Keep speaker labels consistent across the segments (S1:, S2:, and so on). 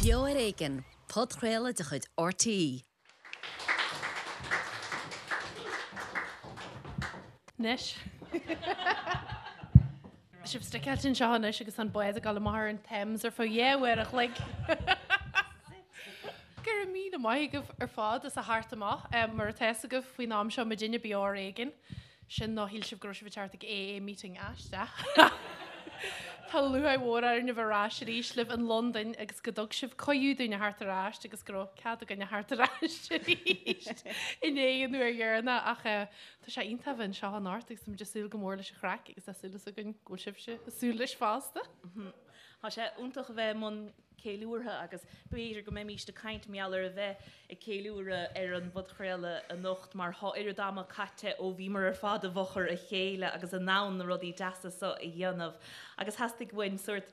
S1: Beo ar Éigean, podchraoladh de chuid RTÉ.
S2: Anois. Tá sibh sticeáilte anseo anois agus an bád ag dul amach ar an Thames ar feadh 2 uair a chloig. Go raibh míle maith agaibh ar fad as a theacht amach. Mar atá fhios agaibh faoin am seo muidinne Beo ar Éigean. Sin nó shíl sibh go raibh sibh ag teacht ag AA meeting aisteach. Tá lúcháir mhór orainn a bheith ar ais arís libh in Londain agus go dtug sibh cuireadh dúinn a theacht ar ais agus go raibh cead againn a theacht ar ais arís i ndiaidh an uair dheireanach ach tá sé iontach a bheith anseo anocht agus táimid ag súil go mór leis an chraic agus tá súil againn go bhfuil sibhse ag súil leis fosta.
S3: Tá sé iontach a bheith i mbun ceiliúrtha agus b'fhéidir go mbeimíst ag caint mar gheall ar a bheith ag ceiliúradh ar an bpodchraoladh anocht mar thá oiread ama caite ó bhíomar ar fad i bhfochair a chéile agus in ann na rudaí deasa so a dhéanamh agus theastaigh uainn sórt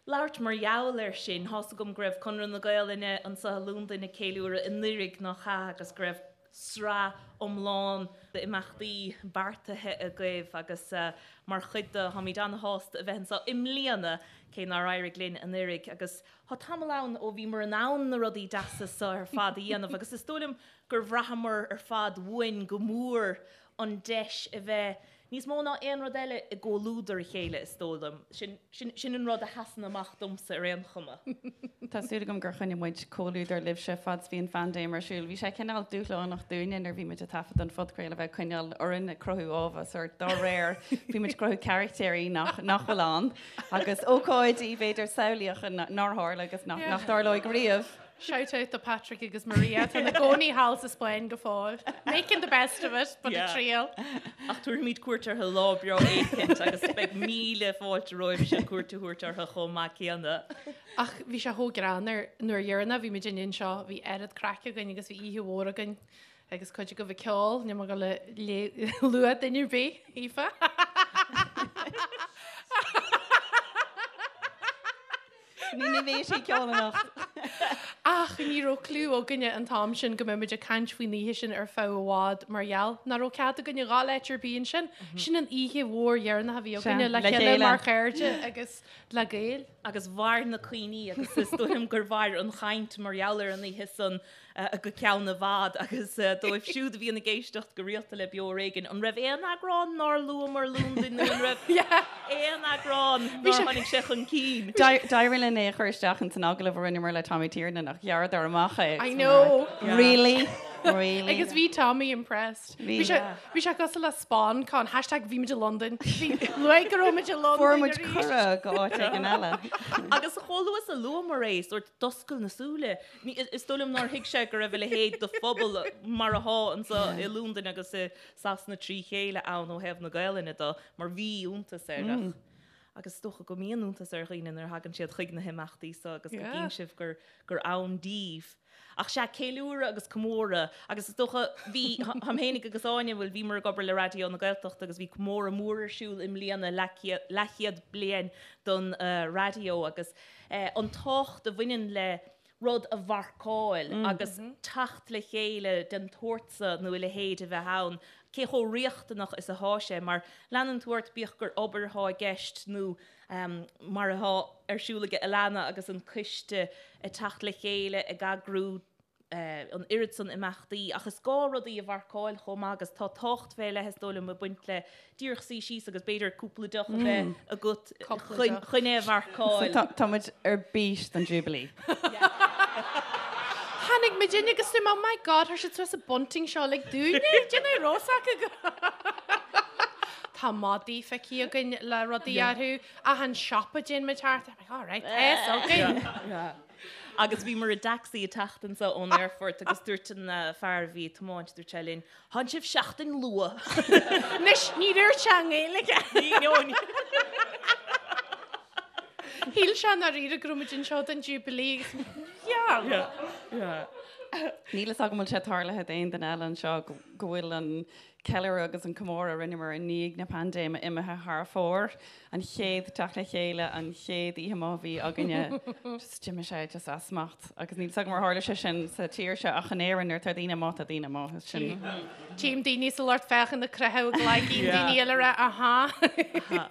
S3: labhairt mar gheall air sin. Thá's agam go raibh Conradh na Gaolainne anso i Londain ag ceiliúradh anuiridh nach ea agus go raibh sraith iomlán d'imeachtaí beartaithe agaibh agus mar chuid de, táimid ana-shásta a bheith anseo i mbliana, cé nár éirigh linn anuiridh. Agus tá tamall ann ó bhíomar in ann na rudaí deasa seo ar fad a dhéanamh agus is dóigh liom gur bhraitheamar ar fad uainn go mór an deis a bheith Níos mó ná aon rud eile i gcomhluadar a chéile, is dóigh liom. Sin, sin, sin an rud a sheasann amach domsa ar aon chuma.
S4: Tá súil agam gur choinnigh muid comhluadar libhse fad is bhí an phaindéim ar siúl. Bhí sé cineál dúshlánach dúinne nuair a bhí muid ag taifead an phodchraoladh a bheith ag coinneáil orainn ag cruthú ábhar sórt dá réir. Bhí muid ag cruthú carachtéirí nach, nach bhfuil ann agus ócáidí b'fhéidir samhlaíocha nár tharla agus nach, nach dtarlóidh riamh.
S2: Shout out do Patrick agus Maria atá ina gcónaí thall sa Spáinn go fóill. Making the best of it, but a triail.
S3: Ach tabharfaimid cuairt orthu lá breá éicint agus beidh míle fáilte romhaibhse cuairt a thabhairt orthu chomh maith céanna.
S2: Ach bhí sé chomh greannmhar nuair dheireanach bhí muid anseo, bhí oiread craic againn agus bhí oíche mhór againn agus cuid agaibh ag ceol, níl mé ag dul a lua duine ar bith, Aoife.
S4: Ní ní bheidh sí ag ceol anocht.
S2: Ach ní raibh cliú againne an t-am sin go mbeadh muid ag caint faoin oíche sin ar feadh i bhfad mar gheall nach raibh cead againne dhul áit ar bith ansin. Sin an oíche mhór dheireanach a bhí againne le chéile mar chairde agus le Gaeil.
S3: Agus mhair na cuimhní agus is dóigh liom gur mhair an chaint mar gheall ar an oíche san go ceann i bhfad agus dóibh siúd a bhíonn ag éisteacht go rialta le Beo Ar Éigean, an raibh aon eagrán nár luamar Londain nó an raibh aon eagrán nár tháinig sé chun cinn?
S4: D'éirigh linn é a chur isteach ins an agallamh a rinneamar le Tommy Tiernan ach ghearradar amach é.
S2: I know!
S4: Really? Really?
S2: Agus bhí Tommy impressed. Bhí bhí sé cosúil le SpawnCon, hashtag bhí muid i Londain. Bhí luaigh go raibh muid i Londain
S4: Fuair muid cuireadh go áit éigin eile.
S3: Agus chomh luath is a luamar é, sórt d'oscail na súile. Is dóigh liom nár thuig sé go raibh a leithéid de phobal mar athá anso i Londain agus i Sasana trí chéile ann ó thaobh na Gaelainne de, mar bhí iontas air. Ach, agus is dócha go mbíonn iontas ar dhaoine nuair a thagann siad chuig na himeachtaí so agus go gcíonn sibh gur, gur ann díbh. Ach sea, ceiliúradh agus comóradh agus is dócha, bhí, táim fhéinig agus Áine, bhuel, bhíomar ag obair le Raidió na Gaeltachta agus bhí comóradh mór ar siúl i mbliana, leathchéad bliain don raidió agus, an tábhacht a bhaineann le rud a mharcáil agus teacht le chéile den tsórt so nó a leithéid a bheith ann, cé chomh riachtanach is athá sé, mar leanann tú ort bíodh gur obair athá i gceist nó mar athá ar siúl ag Alannah agus an coiste ag teacht le chéile ag eagrú an oiread san imeachtaí ach is gá rudaí a mharcáil chomh maith agus tá tábhacht fé leith is dóigh liom ag baint le díreach suí síos agus b'fhéidir cúpla deoch a bheith agat chun é a mharcáil.
S4: Tá muid ar bís don Jubilee.
S2: Tháinig muid in agus oh my God, chuir siad suas an bunting seo like dúinne, déanamh rós acu. Tá madaí feicthe againn le rudaí orthu, achan siopa a dtéann muid thart, I'm like, all right, tá fhios againn.
S3: Agus bhíomar i dtacsaí ag teacht anso ón aerfort agus dúirt an fear a bhí ag tiomáint, dúirt sé linn, Thánn sibh seachtain luath.
S2: Anois, ní dúirt sé i nGaeilge.
S3: Ní, no, ní.
S2: Shíl sé ndáiríre go raibh muid anseo don Jubilee agus yeah.
S3: Yeah, yeah.
S4: Níl fhios agam an bhfuil sé tarlaithe d'aon duine eile anseo go bhfuil an. ceiliúradh agus an comóradh a rinneamar i ndiaidh na paindéime imithe thar fóir. An chéad teacht le chéile, an chéad oíche amuigh a bhí againne, just d'imigh sé just as smacht. Agus níl 's agam ar tharla sé sin sa tír seo ach in Éirinn nuair atá daoine amuigh, tá daoine amuigh. Is sin.
S2: Tchím daoine sa lucht féachana ag croitheadh a gcloigeann, daoine eile ag rá aha.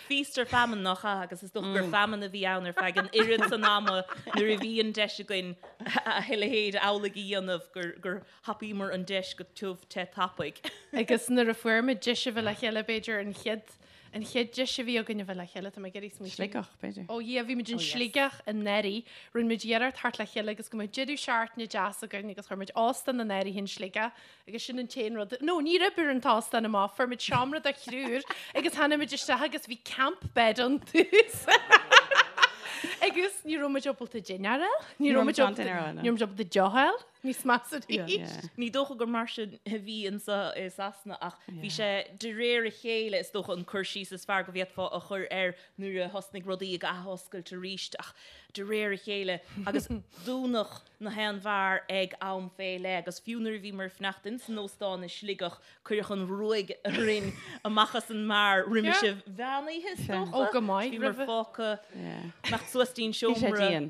S3: Feast or famine nach ea agus is dócha gur famine a bhí ann ar feadh an oiread san ama nuair a bhí an deis againn a leithéid amhlaidh a dhéanamh gur thapaíomar an deis go tiubh te tapaidh.
S2: Agus nuair a fuair muid deis a bheith le chéile, b'fhéidir an chéad, an chéad deis a bhí againn a bheith le chéile, tá mé ag iarraidh smaoitiú.
S4: Sligeach, b'fhéidir.
S2: Ó yeah, bhí muid in Sligeach anuraidh, rinne muid iarracht theacht le chéile agus go mbeadh deireadh seachtaine deas againn agus chuir muid óstán in áirithe in Sligeach agus sin an t-aon rud, no, ní raibh ar an t-óstán amach, fuair muid seomra do thriúr agus tháinig muid isteach agus bhí camp bed ann tús. Agus ní raibh muid ábalta dinnéar a fháil, ní raibh muid ábalta, ní raibh muid ábalta deoch a fháil. Níos measa arís.
S3: Ní dócha gur mar sin a bhí anseo i Sasana ach bhí sé de réir a chéile is dócha an cur síos is fearr go bhféadfá a chur air nuair a thosnaigh rudaí ag athoscailt arís ach de réir a chéile agus dúnadh na haon bheár ag am fé leith agus fiú nuair a bhíomar ag fanacht ins an óstán i Sligeach cuireadh an ruaig orainn amach as an mbeár roimis an mheán oíche is dócha.
S2: Ó go maith
S3: roimhe. Bhíomar fágtha imeacht suas dtí'n seomra.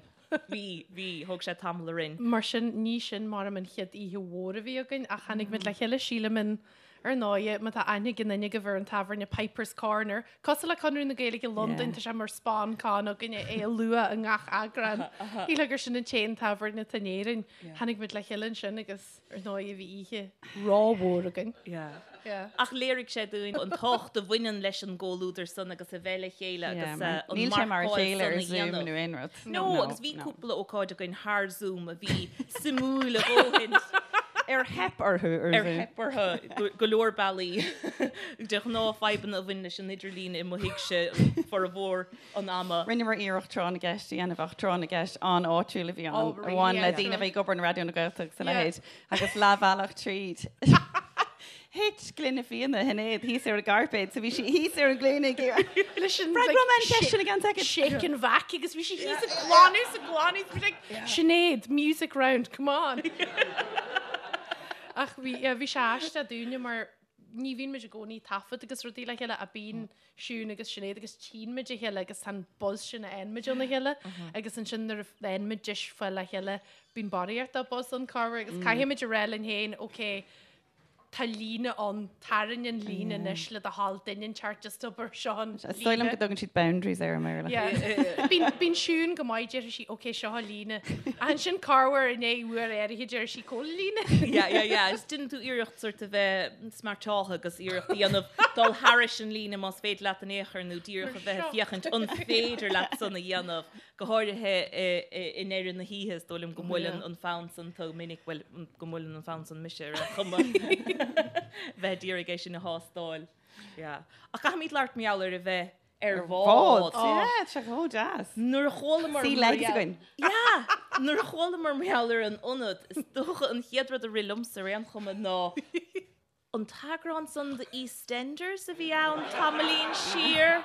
S3: Bhí, bhí, thóg sé tamall orainn.
S2: Mar sin, ní sin maram an chéad oíche mhór a bhí againn ach tháinig muid le chéile, sílim in, ar ndóighe, má tá aithne ag aon duine agaibh ar an tábhairne Piper's Corner, cosúil le Conradh na Gaeilge i Londain, tá sé mar spon con againne é a lua i ngach eagrán. Shílfeá gur sin an t-aon tábhairne atá in Éirinn. Tháinig muid le chéile ansin agus. Ar ndóigh, bhí oíche rómhór againn.
S3: Ach léirigh sé dúinn an tábhacht a bhaineann leis an gcomhluadar san agus a bheith le chéile agus
S4: an Níl sé mar a chéile ar Zoom nó aon
S3: rud. No, agus bhí cúpla ócáid againn thar Zoom a bhí suimiúil a dhóthain.
S4: Ar theip orthu
S3: ar Zoom. Ar theip orthu go leor bealaí. De ghnáth fadhbanna a bhain leis an idirlíon i mo thigse formhór an ama.
S4: Rinneamar iarracht Tráth na gCeist a dhéanamh ach Tráth na gCeist an-áitiúil a bhí ann, a bhain le daoine a bhí ag obair in Raidió na Gaeltachta agus a leithéid, agus leathbhealach tríd thit gloine fíona Shinéad thíos ar an gcairpéad so bhí sí thíos ar a glúine ag iarraidh
S2: Leis an
S4: Freagróidh mé an cheist sin i gceann soicind.
S2: shake and vac agus bhí sí thíos ag glanadh is ag glanadh is bhí sí like, Sinéad, music round, come on! Ach bhí, yeah, bhí sé aisteach dúinne mar ní bhíonn muid i gcónaí ag taifead agus rudaí le chéile ach bíonn Siún agus Sinéad agus tchíonn muid a chéile agus tá an buzz sin a fhaigheann muid óna chéile agus ansin nuair a fhaigheann muid deis fáil le chéile bíonn barraíocht de buzz ann corruair agus caithfidh muid a rá linn féin ok tá líne ann, tarraing an líne anois le do thoil duine inteacht just obair seo an
S4: Is dóigh liom go dtugann siad boundaries air i
S2: mBéarla. Yeah. Bíonn, bíonn Siún go maith, déarfaidh sí, ok, seo an líne. Ach ansin corruair i ndiaidh uair áirithe déarfaidh sí, cá bhfuil an líne?
S3: Yeah, yeah, yeah. Agus déanann tú iarracht sort a bheith smeairteáltha agus iarracht a dhéanamh dul thairis an líne más féidir leat in aon chor nó díreach a bheith ag féachaint an féidir leat san a dhéanamh, go háirithe i ndeireadh na hoíche, is dóigh liom go mbuaileann an fonn san tú minic, bhuel, go mbuaileann an fonn san mise ar aon chuma, bheith ag iarraidh é sin a thástáil. Yeah. Ach caithfimid labhairt mar gheall ar a bheith ar
S4: bhád. Yeah, tá sé chomh deas.
S3: Nuair a chualamar
S4: Sea legs againn.
S3: Yeah! Nuair a chualamar mar gheall ar an ionad, is dócha an chéad rud a rith liomsa ar aon chuma ná an t-eagrán san de EastEnders a bhí ann tamaillín siar.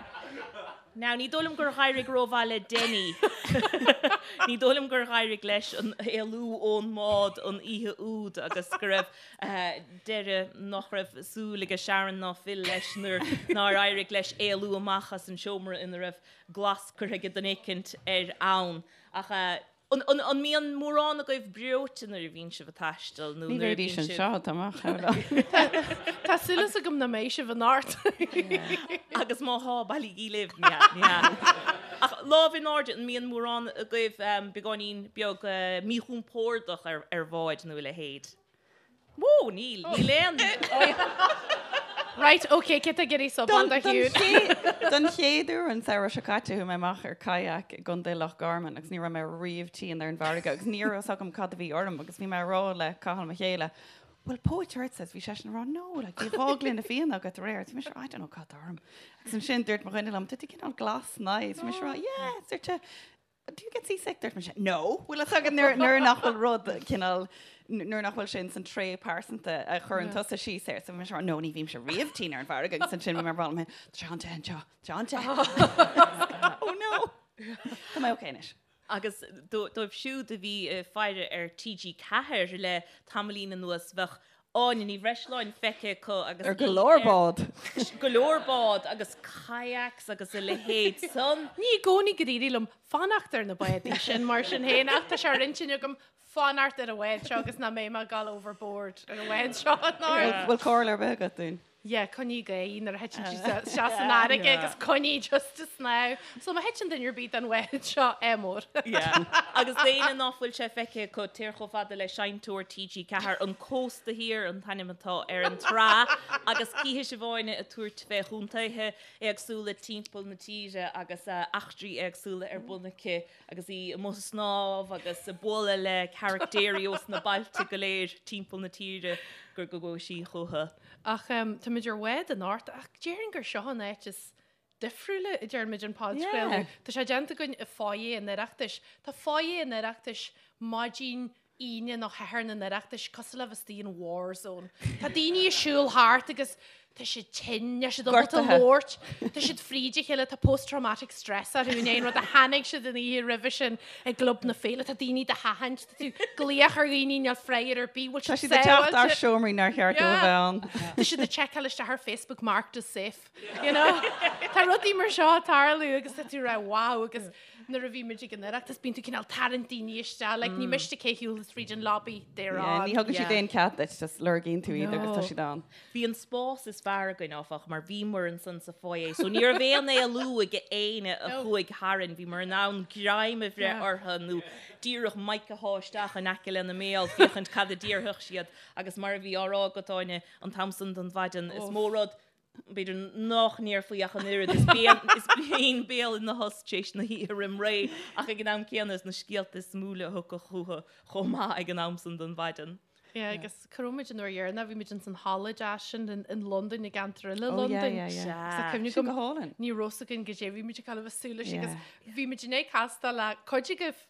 S3: Now, ní dóigh liom gur dh'éirigh rómhaith le Denny. Ní dóigh liom gur dh'éirigh leis an éalú ón mbád an oíche úd agus go raibh deireadh nach raibh súil aige Sharon ná Phil leis nuair nár éirigh leis éalú amach as an seomra ina raibh glas curtha aige duine éicint air ann. Ach an mbíonn mórán agaibh breoite nuair a bhíonn sibh ag taisteal
S4: nó nuair a bhíonn sibh. Ní bheidís anseo, tá amach.
S2: Tá súil agam nach mbeidh sibh anocht.
S3: Agus má thá, bailígí libh. Ní hea, ní hea. Ach lámh in airde, an mbíonn mórán agaibh beagáinín beag míchompordach ar bháid nó a leithéid? Wó, níl, níl aon.
S2: Right, ok, cé tá ag iarraidh subáil do
S4: Shiún? Don chéad uair an samhradh seo caite chuaigh mé amach ar kayak i gContae Loch Garman agus ní raibh mé riamh tinn ar an bhfarraige agus ní raibh fhios agam cad a bhí orm agus bhí mé ag rá le Cathal mo chéile, bhfuil póit ortsa? Bhí seisean ag rá no, like, bhí 2 gloine fíona agat aréir. Bhí mise ag rá, I don't know cad tá orm. Agus ansin dúirt mo dhuine liom, tá tú cineál glas nice. Bhí mise ag rá, yeah, dúirt sé, Do you get seasick? Dúirt mise, No! Bhfuil fhios agat nuair nuair nach bhfuil rud cineál, nuair nach bhfuil sé ins an tréith pearsanta a chuireann tusa síos air. So bhí mise ag rá, No, ní bhímse riamh tinn ar an bhfarraige agus ansin bhí mé ag rá liom féin, Tá sé an-te anseo, tá sé an-te. Oh no! Tá mé ok anois.
S3: Áine Ní Bhreisleáin feicthe acu agus
S4: Ar go leor bád.
S3: Go leor bád agus kayaks agus a leithéid san.
S2: Ní i gcónaí gur éirigh liom fanacht ar na bádaí sin mar sin féin ach tá sé ar intinn agam fanacht ar an bhád seo agus nach mbeidh mé ag dul overboard ar an bhád seo.
S4: Bhfuil comhairle ar bith agat dúinn?
S2: Yeah, coinnigh aghaidh nuair a thiteann tú isteach san fharraige agus coinnigh just ag snámh. So má thiteann duine ar bith den bhád seo, ádh mór.
S3: Yeah. Agus d'éinne ná fuil sé feicthe acu, téir chomh fada le Seinnteoir TG4, An Cósta Thiar an t-ainm atá ar an tsraith, agus cífidh sibh Áine ag tabhairt fé chontaetha éagsúla timpeall na tíre agus eachtraí éagsúla ar bun aici agus í amuigh ag snámh agus ag bualadh le caractéirí ós na bailte go léir timpeall na tíre gur go gcuaigh sí chucu.
S2: Ach táimid ar bhád anocht ach déarfainn gur seo an áit is difriúla a dtearn muid an podchraoladh. Tá sé déanta againn i foyer an Oireachtais. Tá foyer an Oireachtais maidin Aoine nó Shathairn an Oireachtais cosúil le bheith istigh in war zone. Tá daoine ag siúl thart agus tá siad tinn, níl siad ábalta labhairt, tá siad fríd a chéile, tá post-traumatic stress orthu i ndiaidh an rud a chonaic siad an oíche roimhe sin i gClub na Féile. Tá daoine do sheachaint, tá tú ag glaoch ar dhaoine, níl freagra ar bith, bhfuil
S4: Tá
S2: siad
S4: siad ag teacht
S2: sábháilte?
S4: as seomraí nár cheart dóibh a bheith ann.
S2: Tá siad ag seiceáil isteach ar Facebook marked as safe, you know? Tá rudaí mar seo ag tarlú agus tá tú ag rá wow agus nuair a bhí muid ag an Oireachtas bíonn tú cineál tarraingt daoine isteach, like ní miste cé shiúlas fríd an lobby, they're
S4: Yeah,
S2: on.
S4: ní thugann siad
S3: Yeah.
S4: aon cead duit, just lorgaíonn tú iad agus tá
S2: No.
S4: siad ann.
S3: Bhí an spás is fearr againn, áfach, mar bhíomar ansan sa foyer, so ní raibh aon éalú ag éinne a chuaigh tharainn. Bhíomar in ann greim a bhreith orthu nó díreach mic a shá isteach in aice lena mbéal féachaint cad a déarfadh siad. Agus mar a bhí á rá agat, Áine, an t-am san den mhaidin, is mó rud, b'fhéidir, nách ndéarfaí ach an oiread, is bíonn béal ina thost tar éis na hoíche roim ré, ach ag an am céanna is na scéalta is suimiúla a thiocfadh chucu chomh maith ag an am san den mhaidin.
S2: Yeah, agus cá raibh muid an uair dheireanach, bhí muid ins an halla deas sin in Londain, i gceantar eile
S4: Oh, yeah,
S2: Londain.
S4: yeah, yeah.
S2: Sea. Cuimhne
S4: Sin
S2: agam,
S4: go hálainn.
S2: ní raibh fhios againn goidé bhí muid ag gabháil a bheith ag súil leis agus
S4: Yeah.
S2: bhí muid i ndiaidh castáil le cuid agaibh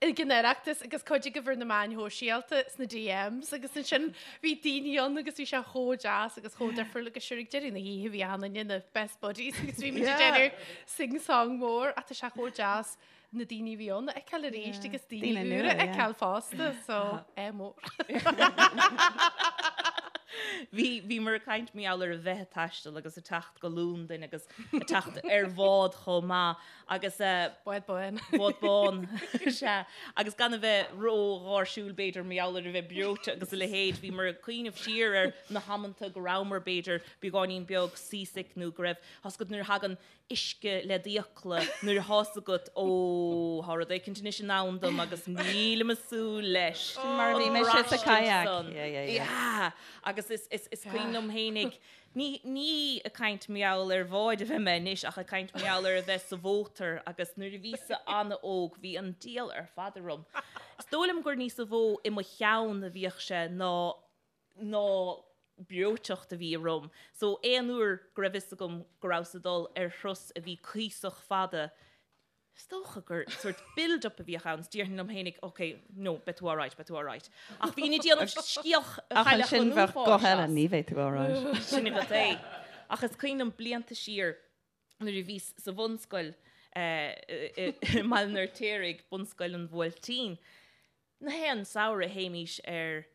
S2: ag an Oireachtas agus cuid agaibh ar na meáin shóisialta sna DMs agus ansin bhí daoine ann agus bhí sé chomh deas agus chomh difriúil agus sure ag deireadh na hoíche bhí achan duine ina best buddies agus bhí muid ag déanamh sing song mór ach tá sé chomh deas na daoine a bhí ann a fheiceáil arís agus daoine úra a fheiceáil fosta, so ádh mór.
S3: Bhí, bhíomar ag caint mar gheall ar a bheith ag taisteal agus ag teacht go Londain agus ag teacht ar bhád chomh maith agus.
S2: Bád bán.
S3: Bád bán, sea. Agus gan a bheith ró-gháirsiúil b'fhéidir mar gheall ar a bheith breoite agus a leithéid, bhíomar ag cuimhneamh siar ar na hamanta go rabhamar b'fhéidir beagáinín beag seasick nó go raibh, tá 's agat nuair a thagann uisce le d'fhiacla nuair atá 's agat ó thá rud éicint anois i ndán dom agus nílim ag súil leis.
S4: Sin mar a bhí mise sa kayak. Yeah, yeah, yeah.
S3: Yeah. Agus is, is, is cuimhin liom fhéinig, ní, ní ag caint mar gheall ar bhád a bheidh mé anois ach ag caint mar gheall ar a bheith sa mhótar agus nuair a bhíos-sa an-óg bhí an diabhal ar fad orm. Is dóigh liom gur níosa mhó i mo cheann a bhíodh sé ná ná breoiteacht a bhí orm. So aon uair go raibh fhios agam go rabhas ag dul ar thuras a bhí cuíosach fada, is dócha gur sort build up a bhíodh ann, is déarfainn liom fhéinig, ok, no, beidh tú alright, beidh tú alright. Ach bhínn ag déanamh scéal
S4: Ach
S3: Chailleach
S4: ansin
S3: an
S4: bheadh
S3: Uafáis
S4: guth eile,
S3: as.
S4: ní bheidh tú alright.
S3: Sin agat é. Ach is cuimhin liom blianta siar nuair a bhíos sa bhunscoil i mBaile an Fheirtéaraigh, Bunscoil an Bhuailtín, na haon samhradh théimís ar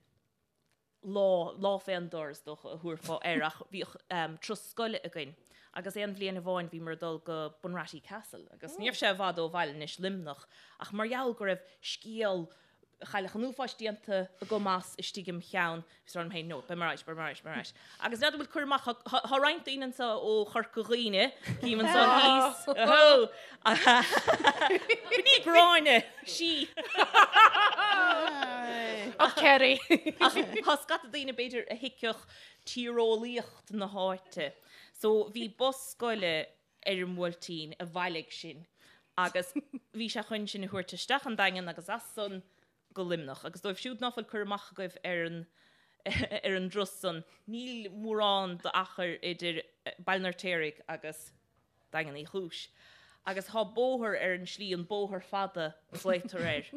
S3: lá, lá fén dtor is dócha a thabharfá air ach bhíodh turas scoile againn agus aon bhliain amháin bhíomar ag dul go Bunratty Castle agus ní raibh sé i bhfad ó bhaile anois, Luimneach, ach mar gheall go raibh scéal Chailleach an Uafáis déanta agam as istigh im cheann, bhíos ag rá liom féin, no, beidh mé alright, beidh mé alright, beidh mé alright. Agus n'fheadar an bhfuil cur amach, tá roinnt daoine anseo ó Chorca Dhuibhne, cím anseo thíos, ohó, B'in í Gráinne, sí.
S2: Ach Kerry.
S3: Ach tá scata daoine b'fhéidir a thuigfeadh tíreolaíocht na háite. So bhí bus scoile ar an mBuailtín a bhailigh sinn agus bhí sé chun sinn a thabhairt isteach an Daingean agus as san go Luimneach. Agus dóibh siúd ná fuil cur amach agaibh ar an ar an dturas san, níl mórán d'achar idir Baile an Fheirtéaraigh agus Daingean Uí Chúis. Agus thá bóthar ar an slí, an Bóthar Fada a ghlaotar air.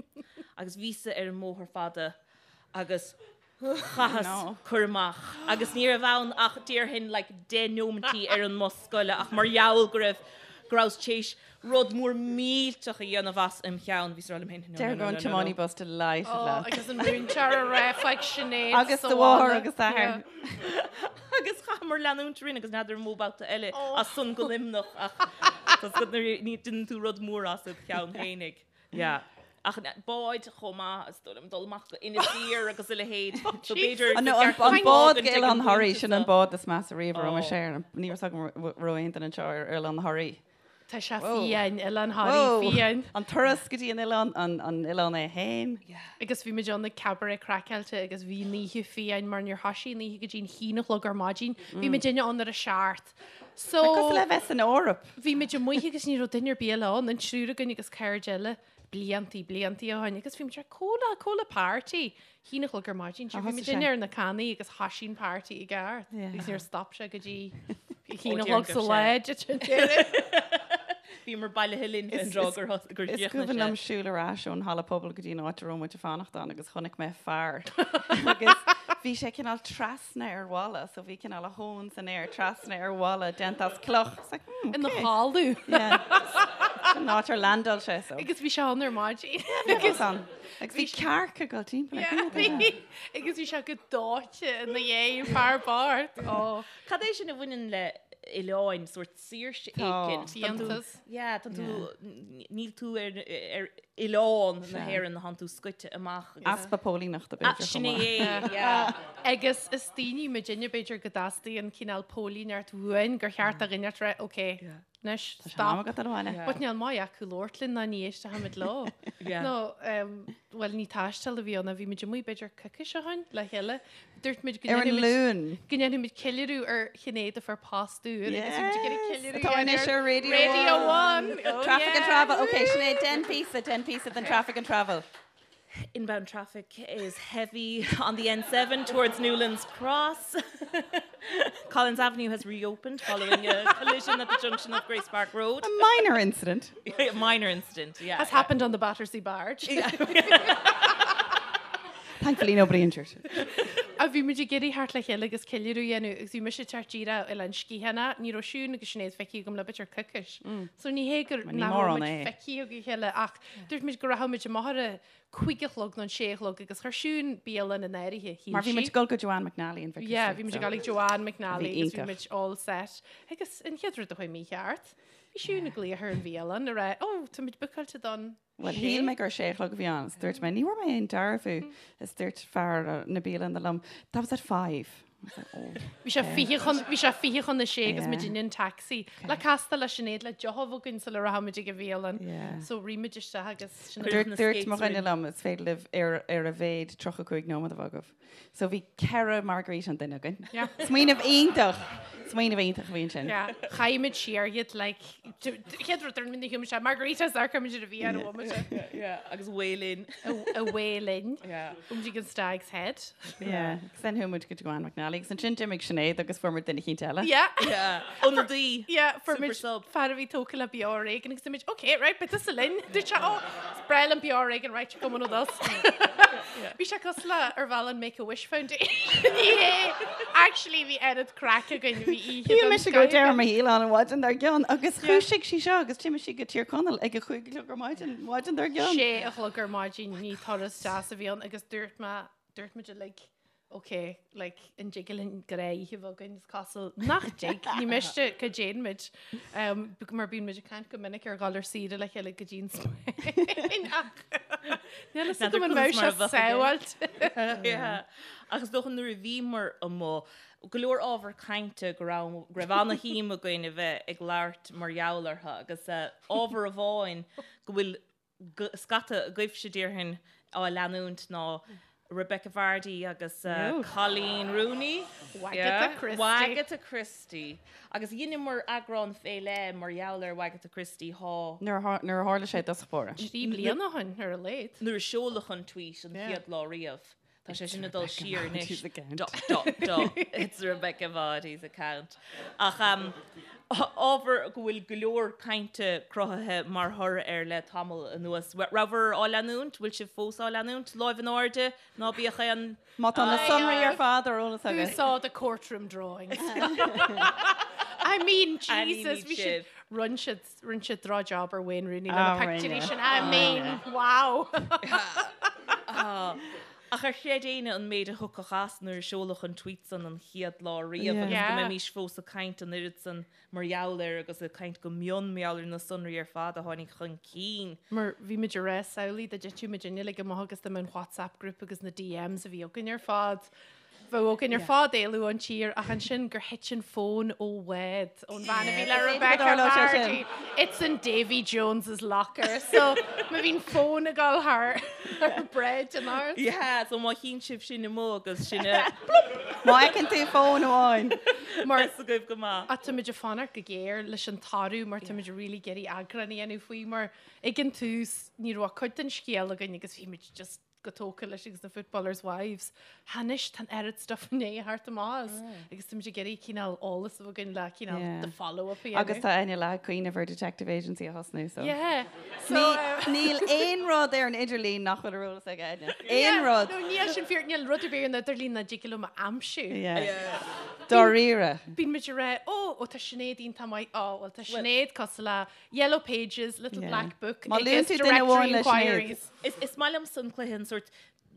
S3: Agus bhíos-sa ar an mBóthar Fada agus chaitheas cur amach. Agus ní raibh ann ach déarfainn like deich neomaintí ar an mbus scoile ach mar gheall go raibh go rabhas téis rud mór millteach a dhéanamh as im cheann. Bhíos ag rá liom féin, no, no,
S4: Deir
S3: no,
S4: an
S3: no, no.
S4: tiománaí bus delighted
S2: Oh,
S4: leat.
S2: agus an múinteoir a rá faoi Sinéad
S4: Agus
S2: sa
S4: do mháthair
S2: bhaile.
S4: agus d'athair.
S3: Agus chaitheamar leanúint orainn agus n'fheadar an mó babhta eile
S2: Oh.
S3: as san go Luimneach ach tá 's agat nuair a ní déanann tú rud mór as id cheann féinig. Yeah. Ach báid chomh maith, is dóigh liom, dul amach go Inis Oírr agus a leithéid. So b'fhéidir
S4: An
S3: gur
S4: an
S3: ceart dom
S4: bád go
S3: fágaint ag
S4: Oileán
S3: an
S4: Thoraí,
S3: bpointe
S4: sin an
S3: seo.
S4: bád is measa riamh a raibh
S3: Oh.
S4: mise air. Ní raibh 's agam raibh aon duine anseo ar Oileán Thoraí.
S2: Tá sé
S4: Whoa.
S2: fiáin, Oileán Thoraí
S4: Whoa.
S2: fiáin.
S4: An turas go dtí an oileán, an an oileán é féin.
S2: Agus bhí muid ann ag cabaret craiceáilte agus bhí an oíche fiáin mar níor thoisigh an oíche go dtí an haon a chlog ar maidin. Bhí muidinne ann ar a seacht. So
S4: Cosúil le bheith san Eoraip.
S2: bhí muid amuigh agus ní raibh duine ar bith eile ann, an triúr againn agus cairde eile, bliantaí, bliantaí ó shin. Agus bhí muid ar comhla, comhla party. Haon a chlog ar maidin, sure, bhí muid
S4: thosaigh sé.
S2: ar na cannaí agus thoisigh an party i gceart.
S4: Yeah.
S2: Agus níor stop sé go dtí
S3: Ó,
S2: haon a
S3: déarfainn
S2: chlog
S3: go
S2: sa
S3: raibh
S2: lá,
S3: sé.
S2: duit an deireadh.
S3: Bhíomar bailithe linn fén
S4: Is-
S3: dtráth gur thos- gur
S4: Is
S3: chríochnaigh
S4: cuimhin liom
S3: sé.
S4: siúl ar ais ón halla pobail go dtí an áit a raibh muid ag fanacht ann agus chonaic mé fear agus bhí sé cineál trasna ar bhalla so bhí cineál a thóin san aer trasna ar bhalla déanta as cloch. It's like, hmm,
S2: Ina
S4: okay.
S2: chodladh.
S4: Yeah. An áit ar landáil sé so.
S2: Agus bhí sé ann ar maidin.
S4: Agus an. Agus bhí cearca ag dul timpeall air.
S2: Yeah, bhí. Agus bhí sé go dóite ina dhiaidh, fear bocht. Ó.
S3: Cad é sin a bhaineann le oileáin, sórt saoirse
S4: Tá.
S3: éicint? Tá tú-
S2: Fiántas.
S3: Yeah, tá tú, níl tú ar, ar oileán na hÉireann, tánn tú scoite amach. agus-
S4: Easpa póilíneachta
S3: Ah,
S4: b'fhéidir
S3: sin
S4: chomh maith.
S3: é, yeah.
S2: Agus is daoine muidinne b'fhéidir go dteastaíonn cineál póilíneacht uainn gur cheart do dhuine rá, ok, Anois,
S4: Tá sé in am
S2: stop.
S4: agat dul abhaile.
S2: But níl maith acu labhairt linn ná ní éistfimid leo.
S3: Yeah.
S2: No, um, bhuel ní taisteal a bhí ann, bhí muid amuigh b'fhéidir coicís ó shin le chéile. Dúirt muid go
S4: Ar an
S2: ndéanfaimid-
S4: Luan.
S2: go ndéanfaimid ceiliúradh ar Shinéad a fuair post úr agus bhí muid ag iarraidh
S4: Yes.
S2: ceiliúradh
S4: Atá anois ar Radio
S2: Radio
S4: One.
S2: One. Oh,
S4: Traffic and
S2: yeah.
S4: travel. Ok, Sinéad, déan píosa, déan píosa den traffic and travel.
S3: Inbound traffic is heavy on the N7 towards Newlands Cross. Collins Avenue has reopened following a collision at the junction of Grace Park Road.
S4: A minor incident.
S3: A minor incident, yeah.
S2: Has happened on the Battersea Barge.
S4: Thankfully nobody injured.
S2: A bhí muid ag iarraidh theacht le chéile agus ceiliúradh a dhéanamh agus bhí mise ag teacht díreach ó Oileán Sgitheanach, ní raibh Siún agus Sinéad feicthe agam le b'fhéidir coicís. So ní hé gur
S4: Ní
S2: nach raibh
S4: mórán
S2: muid
S4: é.
S2: feicthe ag a chéile ach dúirt muid go rachadh muid amach ar a cuig a chlog nó an sé a chlog agus chuir Siún bialann in áirithe, shíl
S4: Mar bhí muid
S2: sí.
S4: ag dul go Joanne McNally in Vicar
S2: Yeah,
S4: Street,
S2: bhí muid
S4: so.
S2: ag dul ag Joanne McNally
S4: Bhí
S2: agus bhí
S4: iontach.
S2: muid all set. Agus an chéad rud a chuaigh mícheart, bhí Siún ag glaoch ar an bhialann ag rá, oh, tá muid bookáilte don
S4: Bhuel,
S2: sé.
S4: shíl mé gur sé a chlog a bhí ann, is dúirt mé, ní bhfuair mé aon dearbhú, is dúirt fear na bialainne liom, that was at five. I was like, oh.
S2: Bhí sé fiche chun, bhí sé fiche chun a sé agus
S4: Yeah.
S2: muid in taxi. Le castáil le Sinéad le deoch a bheith againn sula rachaidh muid ag an bhialann.
S4: Yeah.
S2: So rith muid isteach agus sin
S3: Cuireadh
S4: Dúirt
S3: na
S4: dúirt
S3: skates
S4: mo dhuine
S3: orainn.
S4: liom, is féidir libh ar ar a mhéad 35 nóiméad a bheith agaibh. So bhí ceithre margarita an duine againn.
S2: Yeah.
S4: Smaoineamh iontach! Smaoineamh iontach a bhí ansin.
S2: Yeah. Chaith muid siar iad like chéad rud ar minna hume sé margaritas ar chuir muid ar a bhí ar a bhfuil
S3: Yeah, agus away linn.
S2: away linn.
S3: Yeah.
S2: Chuaigh muid ag an Stag's Head.
S4: Yeah. Agus then chuaigh muid go Joanne McNally agus ansin d'imigh Sinéad agus fuair muid duine eicínt eile.
S2: Yeah.
S3: Yeah. Ionadaí.
S2: Yeah, fuair
S3: Super
S2: muid
S3: sub.
S2: fear a bhí tógtha le Beo Ar Éigean agus muid, okay, right, but this linn. Dúirt sé, oh, is breá liom Beo Ar Éigean, right, you're coming with us. Bhí sé cosúil le ar bhealach an Make a Wish Foundation. Ní hé. Actually, bhí oiread craic againn, bhí oíche
S4: Shíl
S2: den
S4: mise go
S2: scoth
S4: deireadh
S2: againn.
S4: mo shaoil ann an mhaidin dár gcionn agus dhúisigh sí seo agus d'imigh sí go Tír Chonaill ag a chúig a chlog ar maidin, maidin dár gcionn.
S2: Sé a chlog ar maidin, ní turas deas a bhí ann agus dúirt mé, dúirt muid uilig, ok, like, an dtig linn gnáthoíche a bheith againn, is cosúil nach dtig, ní miste go dtéann muid, um, mar bíonn muid ag caint go minic ar dhul ar saoire le chéile go dtí an Spáinn ach níl fhios agam an mbeadh sé sábháilte.
S3: Yeah. Ach is dócha nuair a bhíomar amuigh, go leor ábhar cainte go raibh go raibh ana-shuim againn a bheith ag labhairt mar gheall orthu agus eh, ábhar amháin go bhfuil scata agaibhse déarfainn á leanúint ná Rebekah Vardy agus Coleen Rooney.
S2: Wagatha Christie.
S3: Wagatha Christie. Agus dheineamar eagrán fé leith mar gheall ar Wagatha Christie thá.
S4: Nuair a tharla sé i dtosach báire.
S2: Trí bliana ó shin ar a laghad.
S3: Nuair a seoladh an tweet an chéad lá riamh. Tá sé sin ag dul siar anois.
S4: account.
S3: Dot, dot, dot. It's Rebekah Vardy's account. Ach um, ábhar go bhfuil go leor cainte cruthaithe mar thoradh air le tamall anuas. Rabhabhair á leanúint? Bhfuil sibh fós á leanúint? Láimh in airde? Ná bíodh aon...
S4: Má tá na sonraí ar fad ar eolas
S2: Who
S4: agat.
S2: saw the courtroom drawings? I mean, Jesus,
S3: Ainmnigh
S2: bhí siad
S3: sibh.
S2: Rinne siad, rinne siad droch-job ar Wayne Rooney le na
S4: Ah,
S2: pictiúirí
S4: rinne.
S2: sin. I mean, wow!
S3: Ach ar chreid éinne an méid a thiocfadh as nuair a seoladh an tweet san an chéad lá riamh agus go
S2: Yeah.
S3: mbeimis fós ag caint an oiread san mar gheall air agus ag caint go mion mar gheall ar na sonraí ar fad a tháinig chun cinn.
S2: Mar bhí muid ag rá, samhlaigh dá dtitfeadh muid uilig amach agus dá mbeadh an WhatsApp group agus na DMs a bhí againn ar fad. Bheadh againn ar fad éalú ón tír ach ansin gur thit an fón ó bhád ón bhean a bhí le Rebecca Vardy. It's in Davy Jones's locker. So má bhíonn fón ag dul thar bráid an áras.
S3: Yeah, so má chíonn sibh sin amuigh agus sin a
S4: Má fheiceann tú fón amháin.
S2: Mar
S3: Is agaibh go maith.
S2: Ach tá muid ag fanacht go géar leis an toradh mar tá muid really ag iarraidh eagrán a dhéanamh faoi mar ag an tús ní raibh ach cuid den scéal againn agus bhí muid just go tógtha leis agus na footballers' wives. Anois tá an oiread stuff i ndiaidh theacht amach as agus tá muid ag iarraidh cineál eolas a bheith againn le cineál
S4: Yeah.
S2: the follow-up a dhéanamh.
S4: Agus tá Áine leath ag cuimhneamh ar detective agency a thosnú so.
S2: Yeah. So,
S4: Ní,
S2: uh,
S4: níl aon rud ar an idirlíon nach bhfuil ar eolas ag Áine. Aon rud.
S2: No, níl sin fíor, níl rud ar bith ar an idirlíon nach dtig liom a aimsiú.
S4: Yeah. Dáiríre.
S2: Bíonn muid ag rá, ó, ó tá Sinéad iontach maith, ó, well tá Sinéad cosúil le Yellow Pages, Little
S4: Yeah.
S2: Black Book,
S4: Má luann
S2: agus
S4: tú duine
S2: Directory
S4: amháin le Sinéad.
S2: Inquiries.
S3: Is, is maith liomsa an cluiche an sórt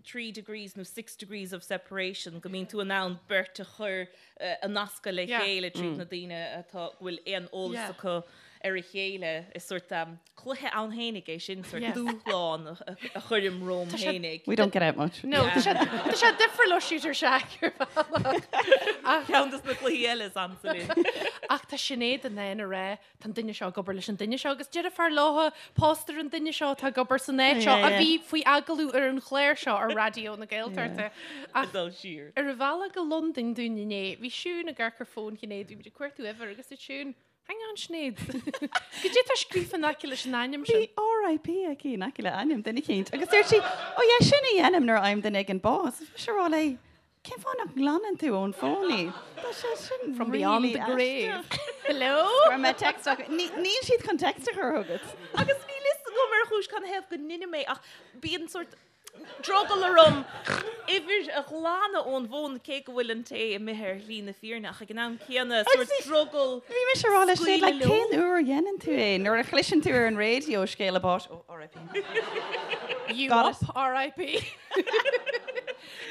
S3: 3 degrees nó 6 degrees of separation go mbíonn tú in ann beirt a chur a nascadh le chéile tríd na daoine atá go bhfuil aon eolas
S2: Yeah.
S3: acu ar a chéile. Is sórt um, cluiche ann fhéinig é sin, sórt
S2: Yeah.
S3: dúshlán a, a chuirim romham
S2: Tá sé-
S3: fhéinig.
S4: We don't get out much.
S2: No, tá sé tá sé difriúil ó Shooter Shack ar bhealach. Ach,
S3: Ceann des na cluichí eile is ansa linn.
S2: ach tá Sinéad in ann a rá tá an duine seo ag obair leis an duine seo agus deirfiúr léi pósta ar an duine seo atá ag obair san áit seo a bhí faoi agallamh ar an chlár seo ar Raidió na Gaeltachta. Ach
S3: Dul siar.
S2: ar an bhealach go Londain dúinn inné, bhí Siún ag amharc ar fón Shinéad, bhí muid ag cuartú uimhir agus dúirt Siún, Hang on Sinéad, goidé tá scríofa in aice leis an ainm
S4: Bhí
S2: sin?
S4: RIP aici in aice le ainm duine eicínt agus dúirt sí, Ó yeah, sin a dhéanaim nuair a fhaighim duine éigin bás. Bhí mise ag rá léi, Cén fáth nach nglanann tú ón bhfón í? Tá sé sin
S2: From beyond
S4: really
S2: the grave. Hello?
S4: Chuir mé text ach níl siad chun text a chur chugat.
S3: Agus níl fhios agam ar chúis canathaobh go ndeinim é ach bíonn sórt drogall orm uimhir a ghlanadh ón bhfón cé go bhfuil an té imithe ar shlí na fírinne ach ag an am céanna sórt drogall
S4: Bhí mise ag rá le Sinéad, like,
S3: scaoileadh leo.
S4: cén uair a dhéanann tú é? Nuair a chloiseann tú ar an raidió scéala báis, oh, RIP.
S2: You
S4: Got
S2: up, RIP.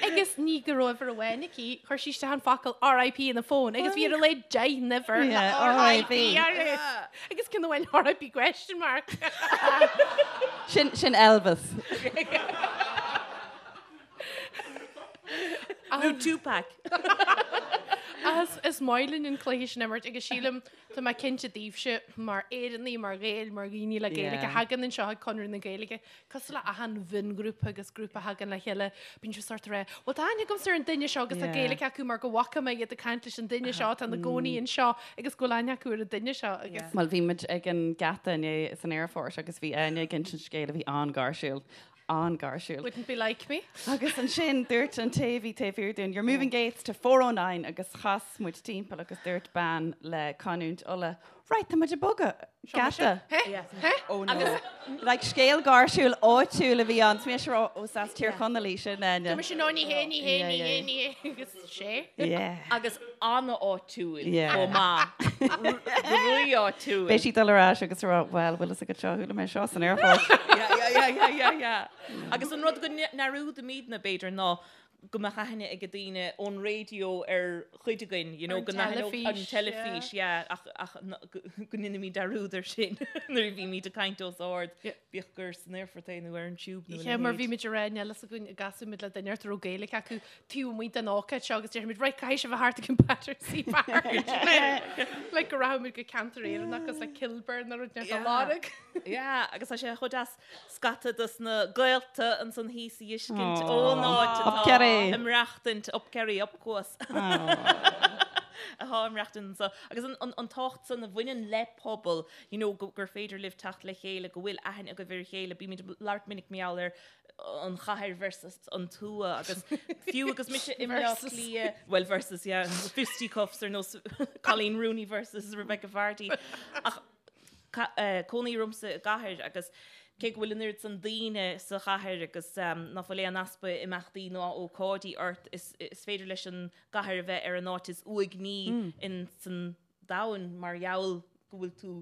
S2: Agus ní go raibh uimhir amháin aici, chuir sí isteach an focal RIP ina fón agus bhí ar a laghad 10 n-uimhir le
S4: Yeah,
S2: RIP
S4: RIP.
S2: uirthi. Agus ceann amháin RIP question mark.
S4: Sin, sin Elvis.
S3: Nó Tupac.
S2: As is maith linn an cluiche sin a imirt agus sílim tá mé cinnte daoibhse mar Éireannaigh, mar Ghaeil, mar dhaoine le Gaeilge
S4: Yeah.
S2: a thagann anseo ag Conradh na Gaeilge, Cosúil le achan mhionghrúpa agus grúpa a thagann le chéile, bíonn siad sórt ag rá, bhuel tá aithne agamsa ar an duine seo agus tá Gaeilge acu mar go bhfaca mé iad ag caint leis an duine seo atá ina gcónaí anseo agus go bhfuil aithne acu ar an duine seo agus.
S4: Bhuel, bhí muid ag an geata inné san aerfort agus bhí Áine ag insint scéil a bhí an-gháirsiúil, an-gháirsiúil.
S2: Wouldn't be like me.
S4: Agus ansin dúirt an té a bhí taobh thiar dúinn, You're moving gates to 409 agus chas muid timpeall agus dúirt bean le canúint Uladh, Right, tá muid ag bogadh. Geata. Oh no. Like scéal gáirsiúil áitiúil a bhí ann. Is mise ag rá, ó is as Tír Chonaill í sin, Áine.
S2: Tá mise no ní hé, ní hé, ní hé, ní hé agus sé.
S4: Yeah.
S3: Agus an-áitiúil
S4: Yeah.
S3: chomh maith. Rí-áitiúil.
S4: Beidh sí ag dul ar ais agus ag rá, well, bhfuil fhios agat seo, chuala mé seo san aerfort.
S3: Yeah, yeah, yeah, yeah, yeah, yeah. Agus an rud go ndearúdaimidne, b'fhéidir, ná go mbeadh aithne ag daoine ón raidió ar chuid againn, you know,
S2: Ar an
S3: go n-aithneodh an
S2: teilifís,
S3: teilifís, yeah, ach, ach go ndeinimid dearúd air sin nuair a bhímid ag caint os ard, bíodh gur san aerfort é nó ar an tube nó a
S2: Yeah, mar
S3: leithéid.
S2: bhí muid ag rá níl fhios againn an gcasfaidh muid le duine a raibh Gaeilge acu taobh amuigh den ócáid seo agus déarfaimid, right, caithfidh sibh a theacht ag an Battersea Park. Like go rachaimid go ceantar Éireannach agus like Kilburn nó rud inteacht á lorg.
S3: Yeah, agus tá sé chomh deas scata dos na gaolta ansan thíos a fheiscint ón áit atá ag maireachtaint, up Kerry, up Cuas, atá ag maireachtaint anso. Agus an tábhacht san a bhaineann le pobal, you know, gur féidir libh teacht le chéile, go bhfuil aithne agaibh ar a chéile. Bímid ag labhairt minic mar gheall ar an chathair versus an tuath agus fiú agus mise i mBleá Cliath, well versus, yeah, fisticuffs ar nós Colleen Rooney versus Rebecca Vardy. Ach Cónaí ormsa i gcathair agus cé go bhfuil an oiread san daoine sa chathair agus ná fuil aon easpa imeachtaí ná ócáidí ort, is féidir leis an gcathair a bheith ar an áit is uaigní in san domhan mar gheall go bhfuil tú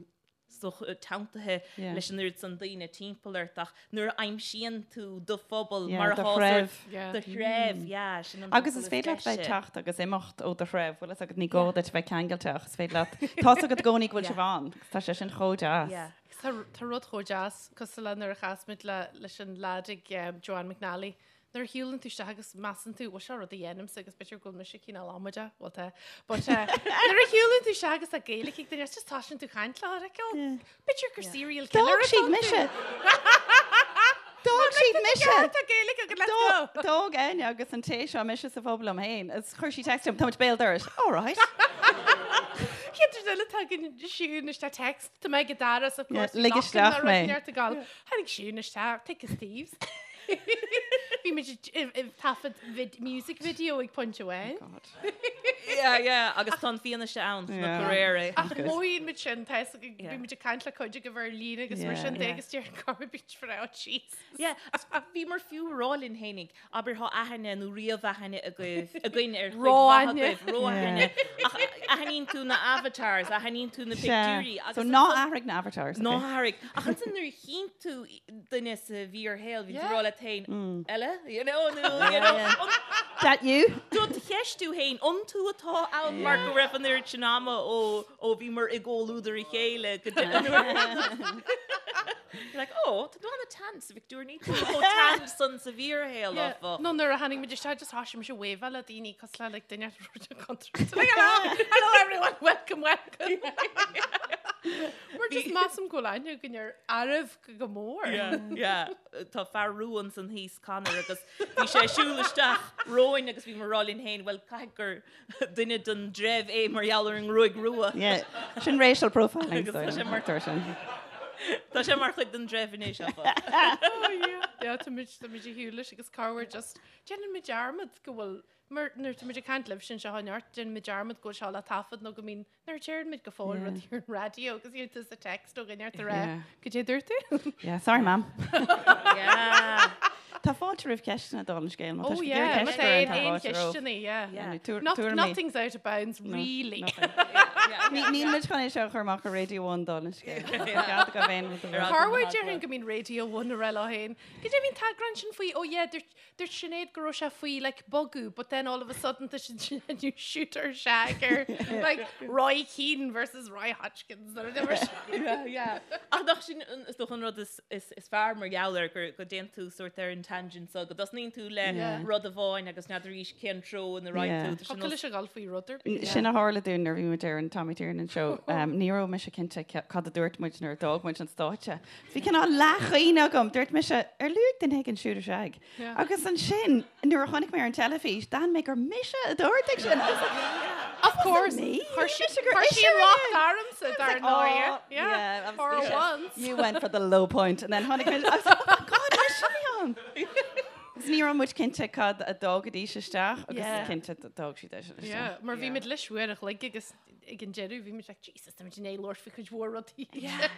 S3: so teanntaithe leis an oiread san daoine timpeall ort ach nuair a aimsíonn tú do phobal mar
S4: do
S3: atá
S4: threibh.
S3: Do threibh, yeah, sin an
S4: Agus is féidir leat bheith ag teacht agus imeacht ó do threibh, bhfuil fhios agat, ní gá duit a bheith ceangailte ach is féidir leat, tá's agat i gcónaí go bhfuil sibh ann agus tá sé sin chomh deas.
S2: Agus tá rud chomh deas, cosúil le nuair a chas muid leis an leaid ag Joanne McNally Nuair a shiúlann tú isteach agus measann tú, bhuel seo rud a dhéanaimse agus b'fhéidir go bhfuil mise cineál amaideach, bhuel tá, but eh, nuair a shiúlann tú isteach agus tá Gaeilge ag duine, just toisíonn tú caint leo, like, oh, b'fhéidir gur serial killer
S4: D'fhág siad mise. D'fhág siad mise.
S2: Tá Gaeilge agat, let's go.
S4: D'fhág Áine agus an té seo mise sa phub liom féin agus chuir sí text chugam, tá muid béal dorais. All right.
S2: Chéad rud eile tagann Siún isteach text, tá mé ag an doras, of course,
S4: lig isteach mé.
S2: Tháinig Siún isteach, thick as thieves. Bhí muid ag taifead music video ag pointe amháin.
S3: Yeah, yeah, agus tá an fianaise ann sna cairéirí.
S2: Ach mothaíonn muid sin, tá fhios againn, bhí muid ag caint le cuid agaibh ar líne agus mar sin de agus deir go bit for out jeez.
S3: Yeah, bhíomar fiú ag rá linn fhéinig, abair tá aithne nó ríomh-aithne agaibh, againn ar chuid mhaith agaibh, ró-aithne, ach aithníonn tú na avatars, aithníonn tú na pictiúirí.
S4: So ná athraigh na avatars.
S3: Ná hathraigh. Ach ansin nuair a chíonn tú duine sa bhfíorshaol, bhíonn tú ag rá leat féin, eile, you know, nó, you know,
S4: That you?
S3: Do do cheistiú féin, an tú atá ann mar go raibh an oiread sin ama ó ó bhíomar i gcomhluadar a chéile go dtí an uair. You're like, oh, tá tú an-tan sa phictiúr, níl tú chomh tan san sa bhfíorshaol, áfach.
S2: Nó nuair a tháinig muid isteach, just thoisigh mise wave le daoine cosúil le like, duine rud contúirteach. Like, hello, hello everyone, welcome, welcome. Mar just measaim go bhfuil aithne againn ar araibh go mór.
S3: Yeah, yeah. Tá fear rua ansan thíos, Conor, agus bhí sé ag siúl isteach romhainn agus bhíomar ag rá linn féin, bhuel, caithfidh gur duine den dtreibh é mar gheall ar an ngruaig rua.
S4: Yeah, sin racial profiling.
S3: Agus tá sé mar
S4: sin.
S3: Tá sé mar chuid den dtreibh anois, áfach.
S2: Oh yeah. Yeah, tá muid tá muid ag siúl leis agus corruair just déanann muid dearmad go bhfuil mar nuair tá muid ag caint libh sin seo neart déanann muid dearmad go bhfuil seo le taifead nó go mbíonn Nuair a deireann muid go fóill rud ar an raidió agus iarrann tú sa text ó dhuine ort a rá goidé dúirt tú?
S4: Yeah, sorry mam.
S3: Yeah.
S4: Tá fáilte roimh ceisteanna dála an scéil má tá
S2: Oh
S4: sibh ag
S2: yeah,
S4: iarraidh
S2: má
S4: ceist
S2: tá
S4: a chur
S2: aon
S4: orainn, tá
S2: aon
S4: fáilte romhaibh.
S2: cheisteanna, yeah.
S4: Yeah. Tuair-
S2: Not,
S4: tuairimí.
S2: nothing's out of bounds, really.
S4: Ní níl muid chun é seo a chur amach ar Radio 1 dála an scéil. Tá cead agaibh aon rud a rá.
S2: Corruair déarfainn go mbíonn Radio 1 ag rá leo féin. Goidé bhí an t-eagrán sin faoi, oh yeah, dúirt Dúirt Sinéad go raibh sé faoi like bogadh but then all of a sudden tá siad ag déanamh shoot or shag ar like Roy Keane versus Roy Hodgkins or whatever.
S3: Yeah, yeah. Ach nach sin an- is dócha an rud is, is, is fearr mar gheall air gur go dtéann tú sort ar an tangent so go dtosnaíonn tú le
S2: Yeah.
S3: rud amháin agus n'fheadar arís cén treo ina raghaidh
S4: Yeah.
S3: tú. Tá sé
S2: Tá leis a dhul faoi rud ar bith.
S4: Sin a tharla dúinn nuair a bhí muid ar an Tommy Tiernan show. Um, ní raibh mise cinnte ce- cad a dúirt muid nuair a d'fhág muid an stáitse. Bhí cineál leathchuimhne agam, dúirt mise, ar luaigh duine éigin shoot or shag? Agus ansin, nuair a chonaic mé ar an teilifís, d'aithin mé gur mise a dúirt é sin. I was like,
S2: Of course,
S4: me.
S2: chuir sí
S4: Mise gur
S2: chuir sí an
S4: ise
S2: locht
S4: rinne.
S2: ormsa dar ndóigh.
S4: Oh, yeah,
S2: For
S4: obviously.
S2: once.
S4: You went for the low point and then tháinig mé, I was like, oh my God, mise a bhí ann. Agus ní raibh muid cinnte cad a d'fhágaidís isteach agus
S2: Yeah.
S4: cinnte d'fhág siad é sin isteach.
S2: Yeah, mar bhí muid leis uair a chloig agus ag an deireadh bhí muid like, Jesus, tá muid i ndiaidh labhairt faoi chuid mhór rudaí.
S3: Yeah.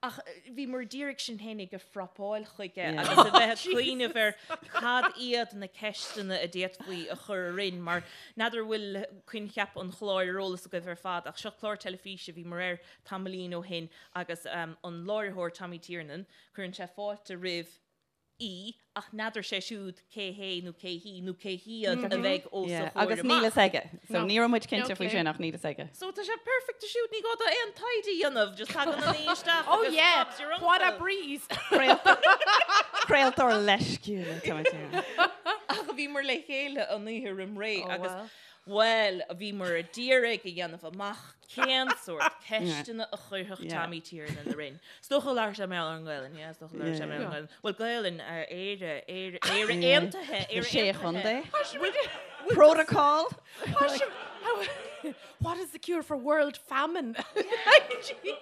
S3: Ach bhíomar d'iarraidh sinn fhéinig a phrapáil chuige agus a bheith ag cuimhneamh ar cad iad na ceisteanna a d'fhéadfaí a chur orainn mar n'fheadar an bhfuil coincheap an chláir ar eolas agaibh ar fad ach seo clár teilifíse a bhíomar air tamaillín ó shin agus an láithreoir Tommy Tiernan, cuireann sé fáilte roimh aoi ach n'fheadar sé siúd cé hé nó cé hí nó cé hiad a bheidh os a chomhair
S4: Agus níl
S3: amach.
S4: fhios aige. So ní raibh muid cinnte faoi sin ach níl fhios aige.
S3: So tá sé perfect siúd, ní gá dó aon taighde a dhéanamh, just tagann an aoi isteach
S2: Oh
S3: agus
S2: yeah,
S3: Bob's your
S2: what a
S3: uncle.
S2: breeze!
S4: Craoltóir leisciúil atá ann.
S3: Ach bhíomar le chéile an oíche roim ré
S2: Oh,
S3: agus
S2: well.
S3: Bhuel, bhíomar d'iarraidh a dhéanamh amach cén sórt ceisteanna a chuirfeadh Tommy Tiernan orainn. Is dócha labhair sé mar gheall ar an nGaelainn, yeah, is dócha labhair sé mar gheall ar an Ghaelainn. Bhuel, Gaelainn, Éire, Éire, Éire Aontaithe, Éire
S4: Sé
S3: Aontaithe.
S4: chontae. Protocol.
S2: What is the cure for world famine? Jesus.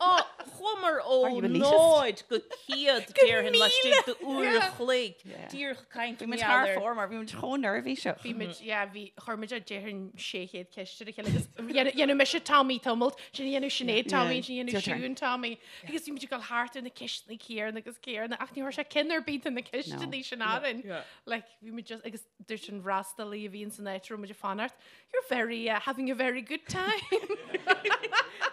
S3: Ó, chuamar ó
S4: Are you elitist?
S3: náid go céad déarfainn laistigh d'uair a chloig. Díreach ag caint
S4: Bhí muid
S3: mar
S4: thar
S3: gheall ar.
S4: fóir mar bhí muid chomh neirbhíseach.
S2: Bhí muid, yeah, bhí, chuir muid déarfainn 600 ceist ar a chéile agus dhéanadh mise Tommy tamalt, ansin dhéanadh Sinéad Tommy, ansin dhéanadh
S4: Your turn.
S2: Siún Tommy. Agus bhí muid ag dul thart ar na ceisteanna céanna agus céanna ach ní raibh sé ceann ar bith de na ceisteanna sin orainn. Like, bhí muid just, agus dúirt an freastalaí a bhí in san áit a raibh muid ag fanacht, You're very, uh, having a very good time.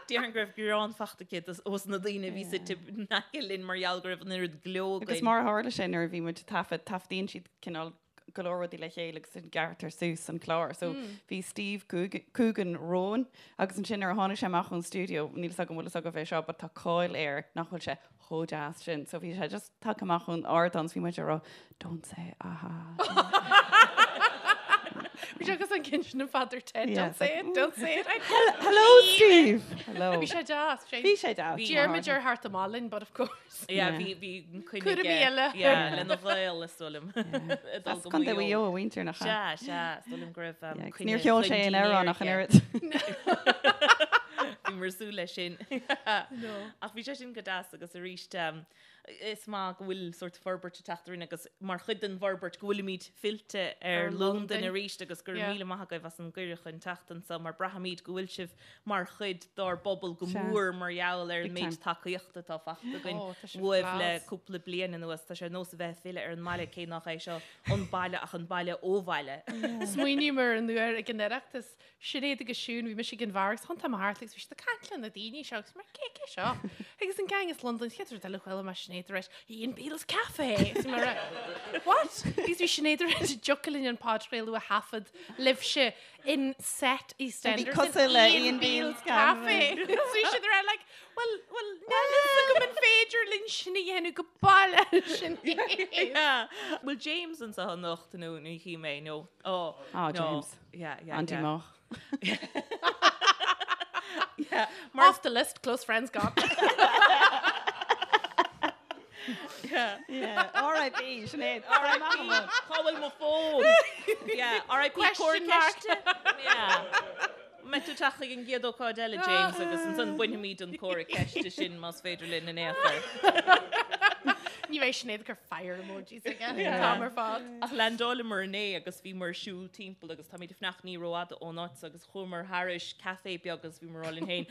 S3: Déarfainn go raibh greann fachta aici ós na daoine a bhí suite in aice linn mar gheall go raibh an oiread gleo againn.
S4: Agus mar a tharla sé nuair a bhí muid ag taifead, taifeadaíonn siad cineál go leor rudaí le chéile agus gearrtar suas an clár. So bhí Steve Coogan romhainn agus ansin nuair a tháinig sé amach ón stiúideo, níl 'fhios agam an bhfuil 'fhios agaibh é seo, but tá cáil air nach bhfuil sé chomh deas sin. So bhí sé just tagtha amach ón ardán 's bhí muid ag rá, don't say aha.
S2: Bhí sé agus an ceann sin in Father Ted,
S4: Yeah,
S2: don't
S4: it's
S2: say
S4: like,
S2: it, don't say it. I
S4: Hello Steve! Hello.
S2: Bhí sé deas.
S4: Bhí sé deas.
S2: D'iarr muid air theacht amach linn, but of course.
S3: Yeah,
S4: Yeah.
S3: bhí bhí coinne
S2: Cúraimí
S3: aige,
S2: eile.
S3: yeah, lena ghaol is dóigh liom. Ag dul
S4: As
S3: go
S4: Contae
S3: Maigh
S4: Mhaigh
S3: Eo.
S4: Eo a mhuintir nach ea?
S3: Sea, sea, is dóigh liom go raibh um,
S4: Yeah, agus
S3: coinne
S4: níor cheol sé
S3: chun
S4: aon amhrán
S3: dinnéir
S4: ach an
S3: aige.
S4: oiread.
S3: Bhíomar ag súil leis sin. Ach bhí sé sin go deas agus arís um, is maith go bhfuil sórt forbairt ag teacht orainn agus mar chuid den bhforbairt go bhfuilimid fillte ar
S2: Ar
S3: Londain
S2: Londain.
S3: arís agus go raibh
S2: Yeah.
S3: míle maith agaibh as an gcuireadh chun teacht anseo mar braithimid go bhfuil sibh mar chuid dár bpobal go
S4: Sea.
S3: mór mar gheall ar an
S4: Big
S3: méid
S4: time.
S3: tacaíochta atá fachta againn
S2: Oh, tá sibh
S3: uaibh le
S2: class.
S3: cúpla bliain anuas. Tá sé ar nós a bheith ag filleadh ar an mbaile cé nach é seo an baile ach an baile ó bhaile.
S2: Smaoiním ar an uair ag an Oireachtas Sinéad agus Siún, bhí mise ag an bheár agus thiontaigh mé thart agus bhí siad ag caint le na daoine seo agus mé cé cé seo? Agus an gang as Londain, chéad rud eile chuala mé Sinéad ag rá Ian Beale's Cafe! Agus bhí mé ag rá, What? Agus bhí Sinéad ag rá go dtiocfadh linn an podchraoladh a thaifead libhse in set EastEnders
S4: Bhí cosúil le Ian Beale's
S2: Cafe. So bhí siad ag rá like, well, well, níl fhios agam an féidir linn sin a dhéanamh go baile sin.
S3: Yeah. Bhfuil James anseo anocht nó ní chím é nó oh,
S4: Oh,
S3: no.
S4: James.
S3: Yeah, yeah,
S4: Andy
S3: yeah.
S4: Moch.
S3: Yeah. Mar
S2: Off the list, close friends gone.
S3: yeah.
S4: Yeah, R.I.P. Sinéad. R.I.P.
S3: Cá bhfuil mo fón? Yeah, R.I.P.
S2: Question mark.
S3: Ceiste. Yeah. Mbeidh tú teacht chuig an gcéad ócáid eile, James, agus ansan bainfimid an comhra ceiste sin más féidir linn in aon chor.
S2: Ní bheidh Sinéad ag cur fire emojis aige an t-am ar fad.
S3: Ach landáileamar inné agus bhíomar ag siúl timpeall agus táimid ag fanacht ní rófhada ón áit so agus chuamar thairis café beag agus bhíomar ag rá linn féin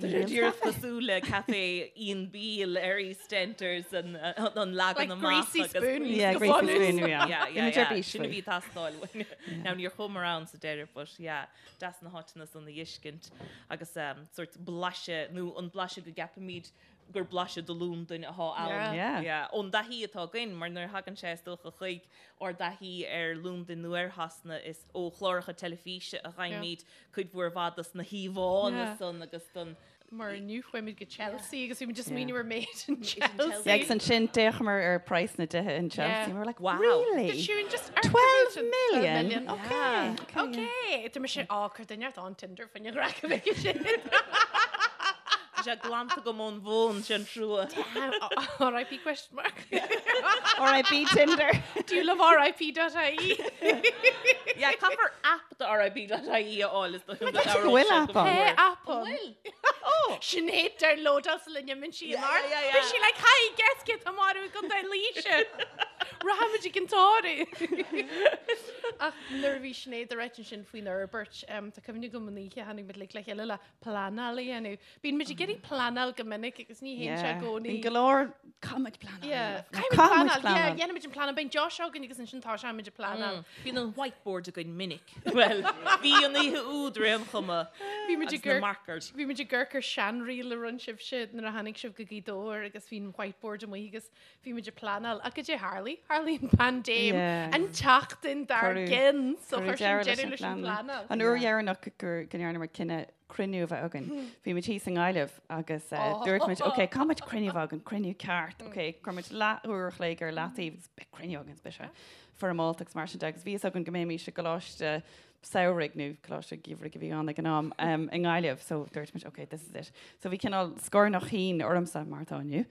S3: Tá sé díreach cosúil le café Ian Beale ar EastEnders an an leagan
S2: Like
S3: amach
S2: Greasy
S3: agus
S2: Spoon.
S4: Yeah,
S2: Go
S4: Greasy
S2: bunús.
S4: Spoon, yeah.
S3: Yeah,
S4: Bhí
S3: yeah,
S4: muid ar
S3: yeah.
S4: bís
S3: Sin a
S4: faoi.
S3: bhí ag teastáil uainn. Now níor chuamar ann sa deireadh but yeah, deas na háiteanna san a fheiscint agus sórt blaiseadh nó an blaiseadh go gceapaimid gur blaiseadh de Londain atá ann.
S4: Yeah.
S3: Yeah. Ón dtaithí atá againn, mar nuair a thagann sé is dócha chuig ár dtaithí ar Londain nó ar Shasana is ó chláracha teilifíse a fhaighimid cuid mhór mhaith dos na híomhánna
S2: Yeah.
S3: san agus don
S2: Mar inniu chuaigh muid go Chelsea agus bhí muid just smaoineamh ar méid in Chelsea.
S4: Yeah, agus ansin d'fhéachamar ar price na dtithe in Chelsea
S2: Yeah.
S4: and we were like,
S3: Wow.
S4: really?
S2: Did Siún just
S4: 12 million? Okay. Okay.
S2: Okay. Tá mise á cur duine on Tinder faoin ghraic a bheith sin.
S3: Tá sé glanta agam ón bhfón sin trua.
S2: RIP question mark.
S4: R.I.P. Tinder.
S2: Do you love RIP.ie?
S3: Yeah, caithfear app do RIP.ie a fháil is dóigh liom go
S4: go bhfuil app ann.
S2: Hey, app an.
S3: Bhfuil?
S2: Oh. Sinéad downloadáil sula n-imíonn sí
S3: Yeah,
S2: amach.
S3: yeah, yeah.
S2: Bhí sí like, hi, guess cé atá marbh i gContae Laoise. Rachaimid ag an tórramh. Ach nuair a bhí Sinéad ag ráit ansin faoin fhorbairt, um, tá cuimhne agam an oíche tháinig muid le chéile le pleanáil a dhéanamh. Bíonn muid ag iarraidh pleanáil go minic agus ní théann sé i gcónaí.
S4: Bíonn go leor caithfimid pleanáil.
S2: Yeah.
S4: Caithfimid
S2: Caithfimid pleanáil. Yeah,
S4: pleanáil.
S2: dhéanaimid an pleanáil. Beidh deois againn agus ansin tá sé muid ag pleanáil.
S3: Bíonn an whiteboard againn minic. Well, bhí an oíche úd ar aon chuma.
S2: Bhí muid ag
S3: Agus na markers.
S2: Bhí muid ag amharc ar seanreel a rinne sibhse nuair a tháinig sibh go Gaoth Dobhair agus bhí an whiteboard amuigh agus bhí muid ag pleanáil. Ach goidé tharlaigh? Tharlaigh an paindéim
S4: Yeah.
S2: an tseachtain dár
S4: Cuireadh-
S2: gcionn. So
S4: Cuireadh
S2: chuir sin
S4: deireadh
S2: deireadh leis an pleanáil.
S4: An uair dheireanach gur go ndearnamar cinneadh cruinniú a bheith againn. Bhí muid thíos i nGaillimh agus dúirt muid, ok, caithfidh muid cruinniú a bheith againn, cruinniú ceart, ok, chuir muid leathuair a chloig ar leataobh agus beidh cruinniú againn, beidh sé foirmeálta agus mar sin de agus bhí fhios againn go mbeimis i gcoláiste samhraidh nó coláiste geimhridh a bhí ann ag an am i nGaillimh so dúirt muid, ok, this is it. So bhí cineál scornach thinn ormsa mar atá inniu,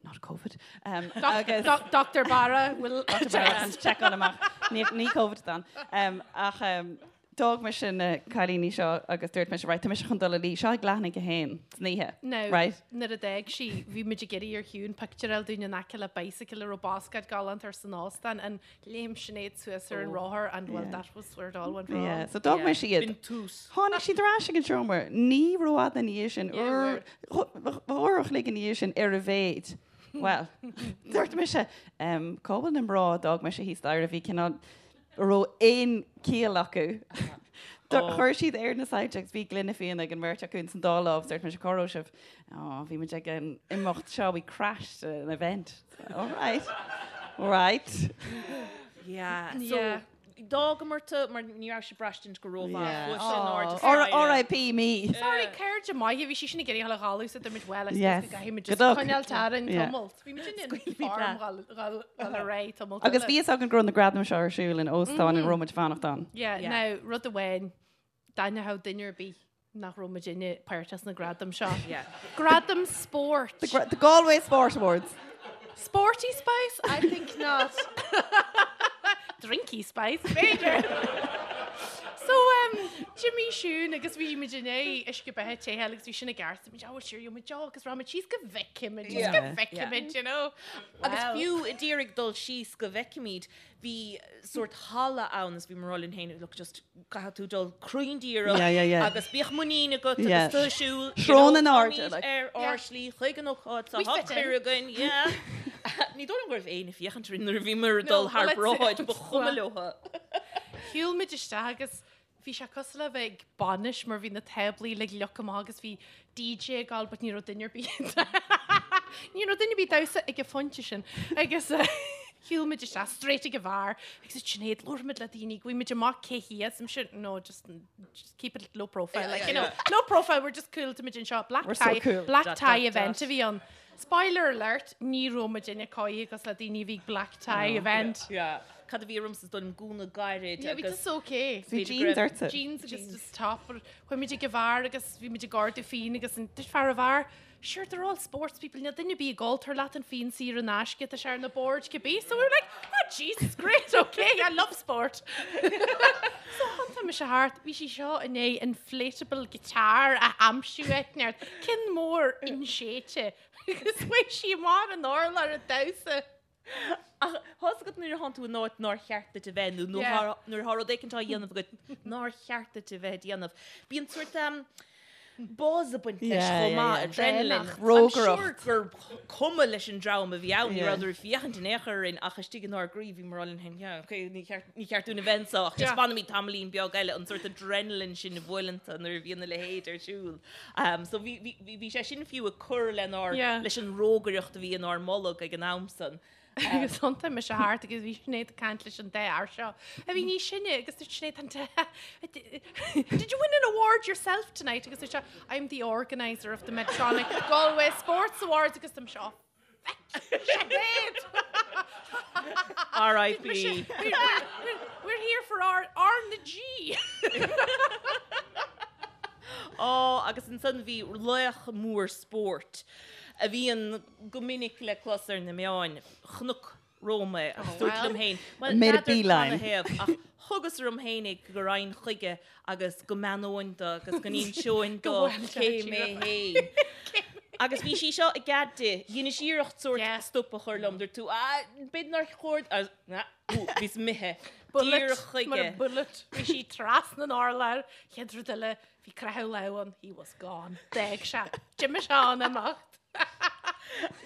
S4: not Covid. Um, agus
S2: Dr. Barra will
S4: checkáil amach ní ní Covid dan. Um, ach um, d'fhág mise na cailíní seo agus dúirt mise right, tá mise chun dul a luí seo ag leath i ndiaidh a haon san oíche.
S2: Now,
S4: Right?
S2: nuair a d'fhág sí, bhí muid ag iarraidh ar Shiún pictiúr a fháil dúinn in aice le bicycle a raibh bascaed galánta air san óstán and léim Sinéad suas ar an rothar and well that was where it all went wrong.
S4: Yeah, so d'fhág mise iad.
S3: B'in tús.
S4: Tháinig siad ar ais ag an seomra. Ní rófhada ina dhiaidh sin, uair, uair a chloig ina dhiaidh sin ar a mhéid. Bhuel, dúirt mise, em, cá bhfuil na mná a d'fhág mise thíos staighre a bhí cineál, a raibh aon chiall acu. Chuir siad air na soilse agus bhí gloine fíona ag an mbeirt acu ins an dá lámh, dúirt mise, cá raibh sibh? Ó, bhí muid ag an imeacht seo, we crashed an event. All right, right.
S3: Yeah, so Yeah. d'fhágamar tú mar ní raibh sé ag braistint go rómhaith.
S4: Yeah.
S3: Chuaigh sé in airde staighre.
S4: R.I.P. me.
S2: Sorry, cairde maithe, bhí sí sin ag iarraidh a dhul so dúirt muid well, I suppose
S4: Yes.
S2: go gcaithfidh muid
S4: Good
S2: just
S4: luck.
S2: coinneáil orainn
S4: Yeah.
S2: tamalt. Bhí muid in
S3: Scaoilfimid
S2: form
S3: leat.
S2: dhul dhul ar aghaidh tamalt
S4: Agus
S2: eile.
S4: bhí fhios againn go raibh na gradaim seo ar siúl in óstán ina raibh muid ag fanacht ann.
S2: Yeah,
S3: Yeah.
S2: now, rud amháin, d'aithneodh duine ar bith nach raibh muidinne páirteach sna gradaim seo.
S3: Yeah.
S2: Gradam spóirt.
S4: The, the Galway Sport Awards.
S2: Sporty Spice? I think not. Drinky Spice, b'fhéidir. So, um, d'imigh Siún agus bhí muid i ndiaidh uisce beatha te agus bhí sin i gceart. Muid, oh, sure, muid agus rachaimid síos go bhfeicfimid, just go
S4: Yeah.
S2: bhfeicfimid, you know.
S3: Agus
S2: Well.
S3: fiú a d'iarraidh dul síos go bhfeicfimid, bhí sórt halla ann is bhí mé ag rá linn féin, look, just caithfidh tú dul cruinn díreach
S4: Yeah, yeah, yeah.
S3: agus bíodh muinín agat
S4: Yeah.
S3: agus tú ag siúl, you
S4: Srón
S3: know,
S4: in airde,
S3: táimid
S4: like.
S3: ar ár
S2: Yeah.
S3: slí chuig an ócáid
S2: We
S3: tá
S2: fit in.
S3: cuireadh againn, yeah. Ní dóigh liom go raibh éinne ag féachaint orainn nuair a bhíomar ag
S2: No,
S3: dul thar
S2: well, let's-
S3: bráid, ba chuma leo.
S2: Shiúil muid isteach agus bhí sé cosúil le bheith ag bainis mar bhí na táblaí uilig leagtha amach agus bhí DJ ag gabháil but ní raibh duine ar bith ní raibh duine ar bith ag damhsa ag an phointe sin agus shiúil muid isteach straight ag an bheár agus dúirt Sinéad labharfaimid le daoine gheobhaimid amach cé hiad I'm sure no just just keep it low profile like you know low profile we're just cool táimid anseo black
S4: We're so
S2: tie
S4: cool.
S2: black
S3: Dot,
S2: tie
S3: dot,
S2: event
S3: dot.
S2: a bhí ann. Spoiler alert, ní raibh muidinne cóí cosúil le daoine a bhí ag black tie event.
S3: Yeah. Cad a bhí ormsa is dóigh liom gúna gairid
S2: Yeah, bhí
S3: agus
S2: just okay.
S4: Bhí
S3: Bhí
S4: jeans
S3: grip.
S4: ortsa.
S2: Jeans agus just top. Chuaigh muid ag an bheár agus bhí muid ag ordú fíon agus an dúirt fear an bheáir, Sure, they're all sports people, níl duine ar bith ag ól, tabhair leat an fíon saor in aisce, tá sé ar na boird cibé. So we were like, oh Jesus, great, okay, I love sport. So thiontaigh mise thart, bhí sí seo i ndiaidh inflatable guitar a aimsiú áit inteacht, ceann mór inséidte agus chuaigh sí amach ar an urlár ag damhsa.
S3: Ach tá's agat nuair a thánn tú in áit nár cheart duit a bheith nó nuair atá rud éicint á dhéanamh agat nár cheart duit a bheith ag déanamh. Bíonn sórt buzz ag baint leis chomh maith, adrenaline. I'm sure gur cuma leis an dream a bhí ann, ní rabhadar ag féachaint in aon chor orainn ach istigh inár gcroí bhí muid ag rá linn féin, yeah, okay, ní cheart, ní cheart dúinn a bheith anseo ach just fanfaimid tamaillín beag eile, an sórt adrenaline sin a bhuaileann tú nuair a bhíonn a leithéid ar siúl. So bhí, bhí, bhí sé sin fiú ag cur lenár, leis an rógaireacht a bhí inár mbolg ag an am san.
S2: Agus thiontaigh mise thart agus bhí Sinéad ag caint leis an dá fhear seo a bhí níos sine agus dúirt Sinéad an Did you win an award yourself tonight? Agus dúirt sé I'm the organiser of the Medtronic Galway Sports Awards agus dúirt mise Sinéad!
S3: R.I.P.
S2: We're here for our R na G!
S3: Á, agus ansan bhí laoch mór spóirt a bhíonn go minic le clos ar na meáin, chonac romham é agus dúirt liom féin, bhuel,
S4: Made a
S3: n'fheadar
S4: beeline.
S3: canathaobh ach thugas orm féin é go raghainn chuige agus go mbeannóinn do agus go n-inseoinn do cé mé féin. Agus bhí sí seo i gcead di, dheineas iarracht sórt stop a chur liom, dúirt tú, ah, b'fhéidir nár chóir, ah, bhíos imithe díreach
S2: Bullet, mar a
S3: chuige.
S2: bullet, bhí sí trasna an urláir, chéad rud eile, Bhí croitheadh lámh ann, he was gone. D'fhág sé. D'imigh sé an imeacht.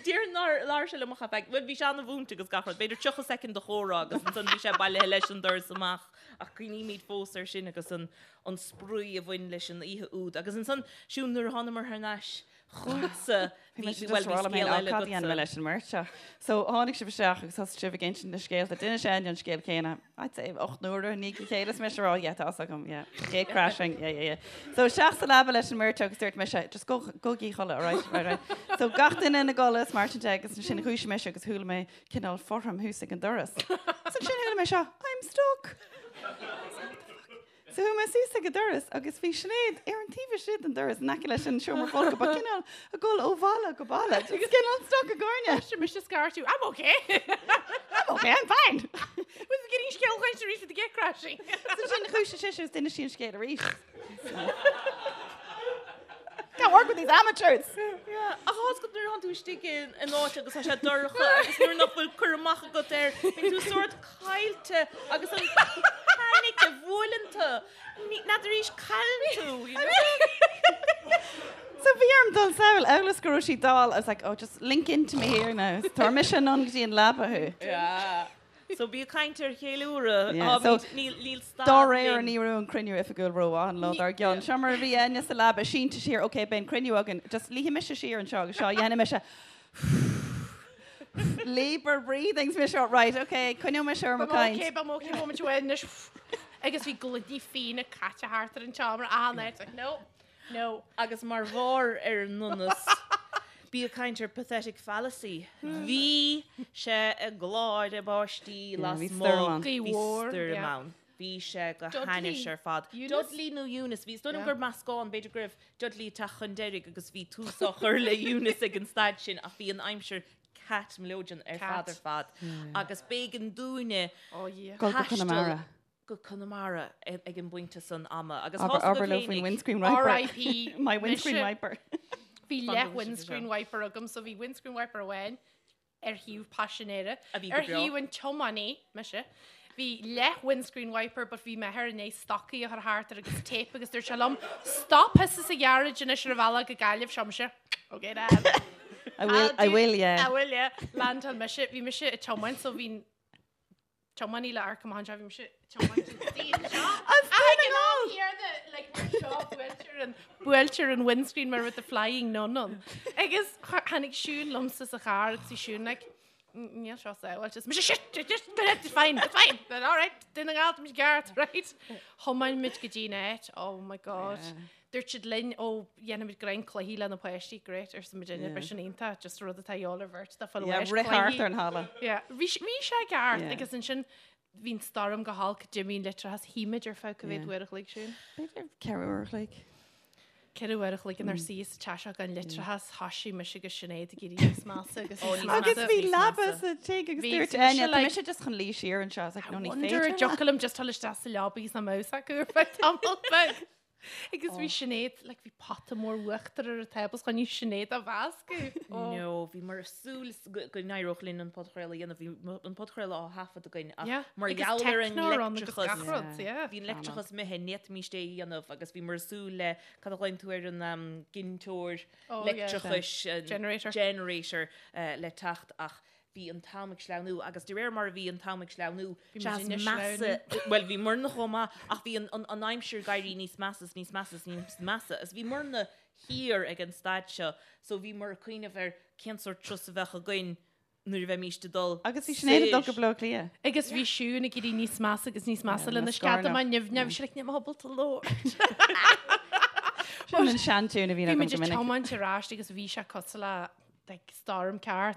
S3: Déarfainn nár labhair sé liom ach ar feadh, bhuel bhí sé ana-mhúinte agus gach rud, b'fhéidir 30 soicind de chomhrá agus ansan bhí sé bailithe leis an doras amach ach cuimhnímid fós air sin agus an an spraoi a bhain leis an oíche úd. Agus ansan, Siún, nuair a thánamar thar n-ais Chugatsa,
S4: Bhí
S3: bhí,
S4: mise
S3: bhuel
S4: just
S3: bhí
S4: rá liom
S3: scéal
S4: féin,
S3: eile
S4: cad a dhéanfaidh mé
S3: agatsa.
S4: leis an mbeirt seo? So tháinig sibh isteach agus thosaigh sibh ag insint na scéalta. D'inis Áine an scéal céanna, I'd say 8 n-uaire i ndiaidh a chéile is mise ag rá, yeah, tá fhios agam, yeah, gate crashing, yeah, yeah, yeah. So isteach sa leaba leis an mbeirt seo agus dúirt mise, just go, gabhaigí a chodladh, alright, right, right. So gach duine ina gcodladh is mar sin de agus ansin dhúisigh mise agus chuala mé cineál fothram thuas ag an doras. So ansin chuala mé seo, I'm stuck. So chuaigh mé suas ag an doras agus bhí Sinéad ar an taobh istigh den doras in aice leis an seomra folctha, ba cineál ag dul ó bhalla go balla, just cineál stuck i gcúinne.
S2: Sin mise scairtiú, I'm okay!
S4: I'm okay, I'm fine!
S2: Was getting scéal chaint arís with the gate crashing.
S4: So sin dhúisigh sise agus d'inis sí an scéal arís. Can't work with these amateurs!
S3: Yeah, ach tá's agat nuair atánn tú istigh in áit agus tá sé dorcha agus nuair nach bhfuil cur amach agat air, bíonn tú sórt caillte agus an panic a bhuaileann tú, n'fheadar arís cailleann tú, you know?
S4: So bhí orm dul sall, amhail is go raibh sí dall, I was like, oh, just link into me here now. Tabharfaidh mise anonn go dtí an leaba thú.
S3: Yeah. So bí ag caint ar cheiliúradh.
S4: Yeah, so
S3: Níl níl stad
S4: Dá réir
S3: linn.
S4: ní raibh an cruinniú oifigiúil rómhaith an lá dár gcionn. Seo mar a bhí Áine sa leaba sínte siar, ok, beidh an cruinniú againn, just luífidh mise siar anseo agus seo, dhéanfaidh mise labour breathing is mise, right, ok, coinneoidh mise ar mo
S2: Beidh
S4: caint.
S2: ok, beidh ok, moment amháin anois. Agus bhí gloiní fíona caite thart ar an tseomra achan áit, like, no, no.
S3: Agus mar bharr ar an ndonas, bí ag caint ar pathetic fallacy. Bhí sé ag gláireadh báistí
S4: Yeah, bhí
S3: lasmuigh.
S4: stoirm ann.
S2: Gaoth
S3: Bhí
S2: mhór,
S3: stoirm
S2: yeah.
S3: ann. Bhí sé go
S2: Dudley.
S3: hainnis ar fad.
S2: Eunice?
S3: Dudley nó Eunice, bhí, is dóigh liom
S2: Yeah.
S3: gur meascán, b'fhéidir go raibh Dudley ag teacht chun deiridh agus bhí tús á chur le Eunice ag an staid sin ach bhí an aimsir cat mileoidean ar
S2: Cat.
S3: fad ar fad. Agus b'éigean dúinne
S2: Oh yeah.
S4: Dul go
S3: taisteal
S4: Conamara.
S3: go Conamara ag an bpointe san ama. Agus
S4: Abair
S3: thosaigh
S4: abair
S3: go
S4: leo faoin
S3: féinig.
S4: windscreen wiper.
S2: R.I.P.
S4: My windscreen
S2: mise.
S4: wiper.
S2: Bhí
S3: Fan
S2: leath
S3: go bhfuil sibh
S2: windscreen
S3: anseo.
S2: wiper agam, so bhí windscreen wiper amháin ar thaobh paisinéara,
S3: A bhí go
S2: ar
S3: breá.
S2: thaobh an tiománaí, mise. Bhí leath windscreen wiper but bhí m'athair i ndiaidh stocaí a chur thart air agus tape agus dúirt sé liom, Stop thusa sa ghearáid anois ar an bhealach go Gaillimh, seo mise. Ok Dad.
S4: I will, I will, yeah.
S2: I will, yeah. Landáil mise, bhí mise ag tiomáint so bhí tiománaí le amharc amach anseo, bhí mise ag tiomáint an seo. Ach ag an am céanna, like, mar seo, buailtear an, buailtear an windscreen mar with the flying nun ann. Agus tháinig Siún liomsa sa charr agus bhí Siún like, Níl seo sábháilte. Is mise shit, shit, shit, it's fine, it's fine, all right, Dún na nGall, tá muid ceart, right? Thiomáin muid go dtí an áit, oh my god. Dúirt siad linn, ó, dhéanfaimid greim cluichí le na páistí, great, arsa muid yeah. Bhí sin iontach, just rud atá de dhíobháil ar bheirt, dá fáil
S4: Yeah, rith thart ar an halla.
S2: Yeah, bhí bhí sé ceart
S4: Yeah.
S2: agus ansin bhí an stoirm go holc, d'imigh an leictreachas, shuigh muid ar feadh cá mhéad
S4: Yeah.
S2: uair a chloig sin.
S4: B'fhéidir 4 uair a chloig.
S2: 4 uair a chloig inár suí sa teach seo gan leictreachas, thoisigh mise agus Sinéad ag éirí níos measa agus níos measa.
S4: Agus bhí
S3: níos
S4: leaba
S3: measa.
S4: sa tigh agus
S2: Bhí,
S4: dúirt
S2: so mise
S4: Áine, tá
S2: like-
S4: mise just chun luí siar anseo. I was like, no, ní
S2: Wonder
S4: féidir
S2: an dtiocfadh liom just dul isteach sa leaba agus nach mbeadh acu ar feadh tamall beag. Agus bhí Sinéad, like, bhí pota mór uachtar ar an tábla chun Sinéad a mheascadh. Oh.
S3: No, bhíomar ag súil go go n-éireodh linn an podchraoladh a dhéanamh, bhí an podchraoladh á thaifead againn ach
S2: Yeah.
S3: mar
S2: Agus
S3: gheall ar an
S2: techno ann agus
S3: leictreachas,
S2: gach rud, yeah.
S3: bhí an leictreachas imithe, ní fhéadfaimis é a dhéanamh agus bhíomar ag súil le, cad a ghlaonn tú ar an ginteoir
S2: Oh, yeah.
S3: leictreachais, an
S2: Generator.
S3: generator, le teacht ach bhí an t-am ag sleamhnú agus de réir mar a bhí an t-am ag sleamhnú,
S2: Bhí
S3: sea
S2: muid
S3: is
S2: ag
S3: measa,
S2: sleamhnú.
S3: bhuel bhí muidne chomh maith ach bhí an, an, an aimsir ag éirí níos measa is níos measa is níos measa is bhí muidne thiar ag an staid seo so bhíomar ag cuimhneamh ar cén sórt turas a bheadh againn nuair a bheimís ag dul
S4: Agus bhí Sinéad ag dul go
S3: soir.
S4: Baile Átha Cliath.
S2: Agus bhí Siún ag éirí níos measa agus níos measa
S4: Yeah,
S2: lena
S4: na
S2: sceadamán
S4: scornach.
S2: nimhneach, bhí sí like, níl mé ábalta labhairt.
S4: Sin an seantiún a bhíonn
S2: Bhí
S4: agam
S2: muid
S4: go
S2: ag
S4: minic.
S2: tiomáint ar ais agus bhí sé cosúil le like, storm ceart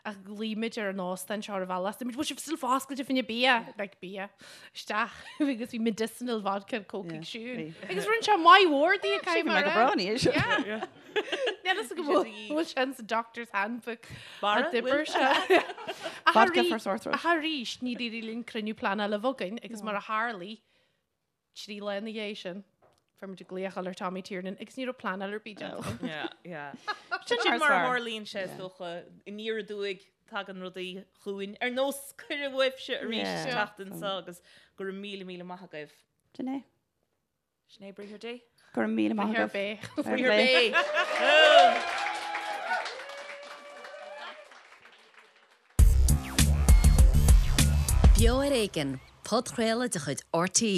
S2: ach ghlaoigh muid ar an óstán seo ar an bhealach. Dúirt muid, bhfuil sibh still foscailte fá choinne bia, like bia, isteach agus bhí medicinal vodka and coke ag Siún. Agus rinne sé maith mhór di ag
S4: Bhí mé go breá ina dhiaidh sin.
S2: Yeah. Níl fhios agam bhfuil bhfuil sé in sa doctor's handbook
S3: Barra,
S2: a d'oibir
S3: bhfuil?
S2: sé. Ach
S4: Vodka
S2: arís-
S4: for sore throat.
S2: Ach arís, ní d'éirigh linn cruinniú pleanála a bheith againn agus mar a tharlaigh, 3 lá ina dhiaidh sin, fuair muid glaoch ar Tommy Tiernan agus ní raibh pleanáil ar bith déanta againn.
S3: Yeah, yeah.
S4: Sin
S3: Sin
S4: mar
S3: mar a
S4: is fearr.
S3: tharlaíonn sé, is dócha, aniar aduaidh tagann rudaí chugainn. Ar nós cuireadh uaibhse arís
S4: Yeah.
S3: teacht anseo agus go raibh míle míle maith agaibh.
S4: Sin é.
S3: Sin é briathar Dé.
S4: Go raibh míle maith
S2: Briathar
S4: agaibh.
S2: Bé.
S3: Briathar Bé.
S1: Beo ar Éigean, podchraoladh de chuid RTÉ.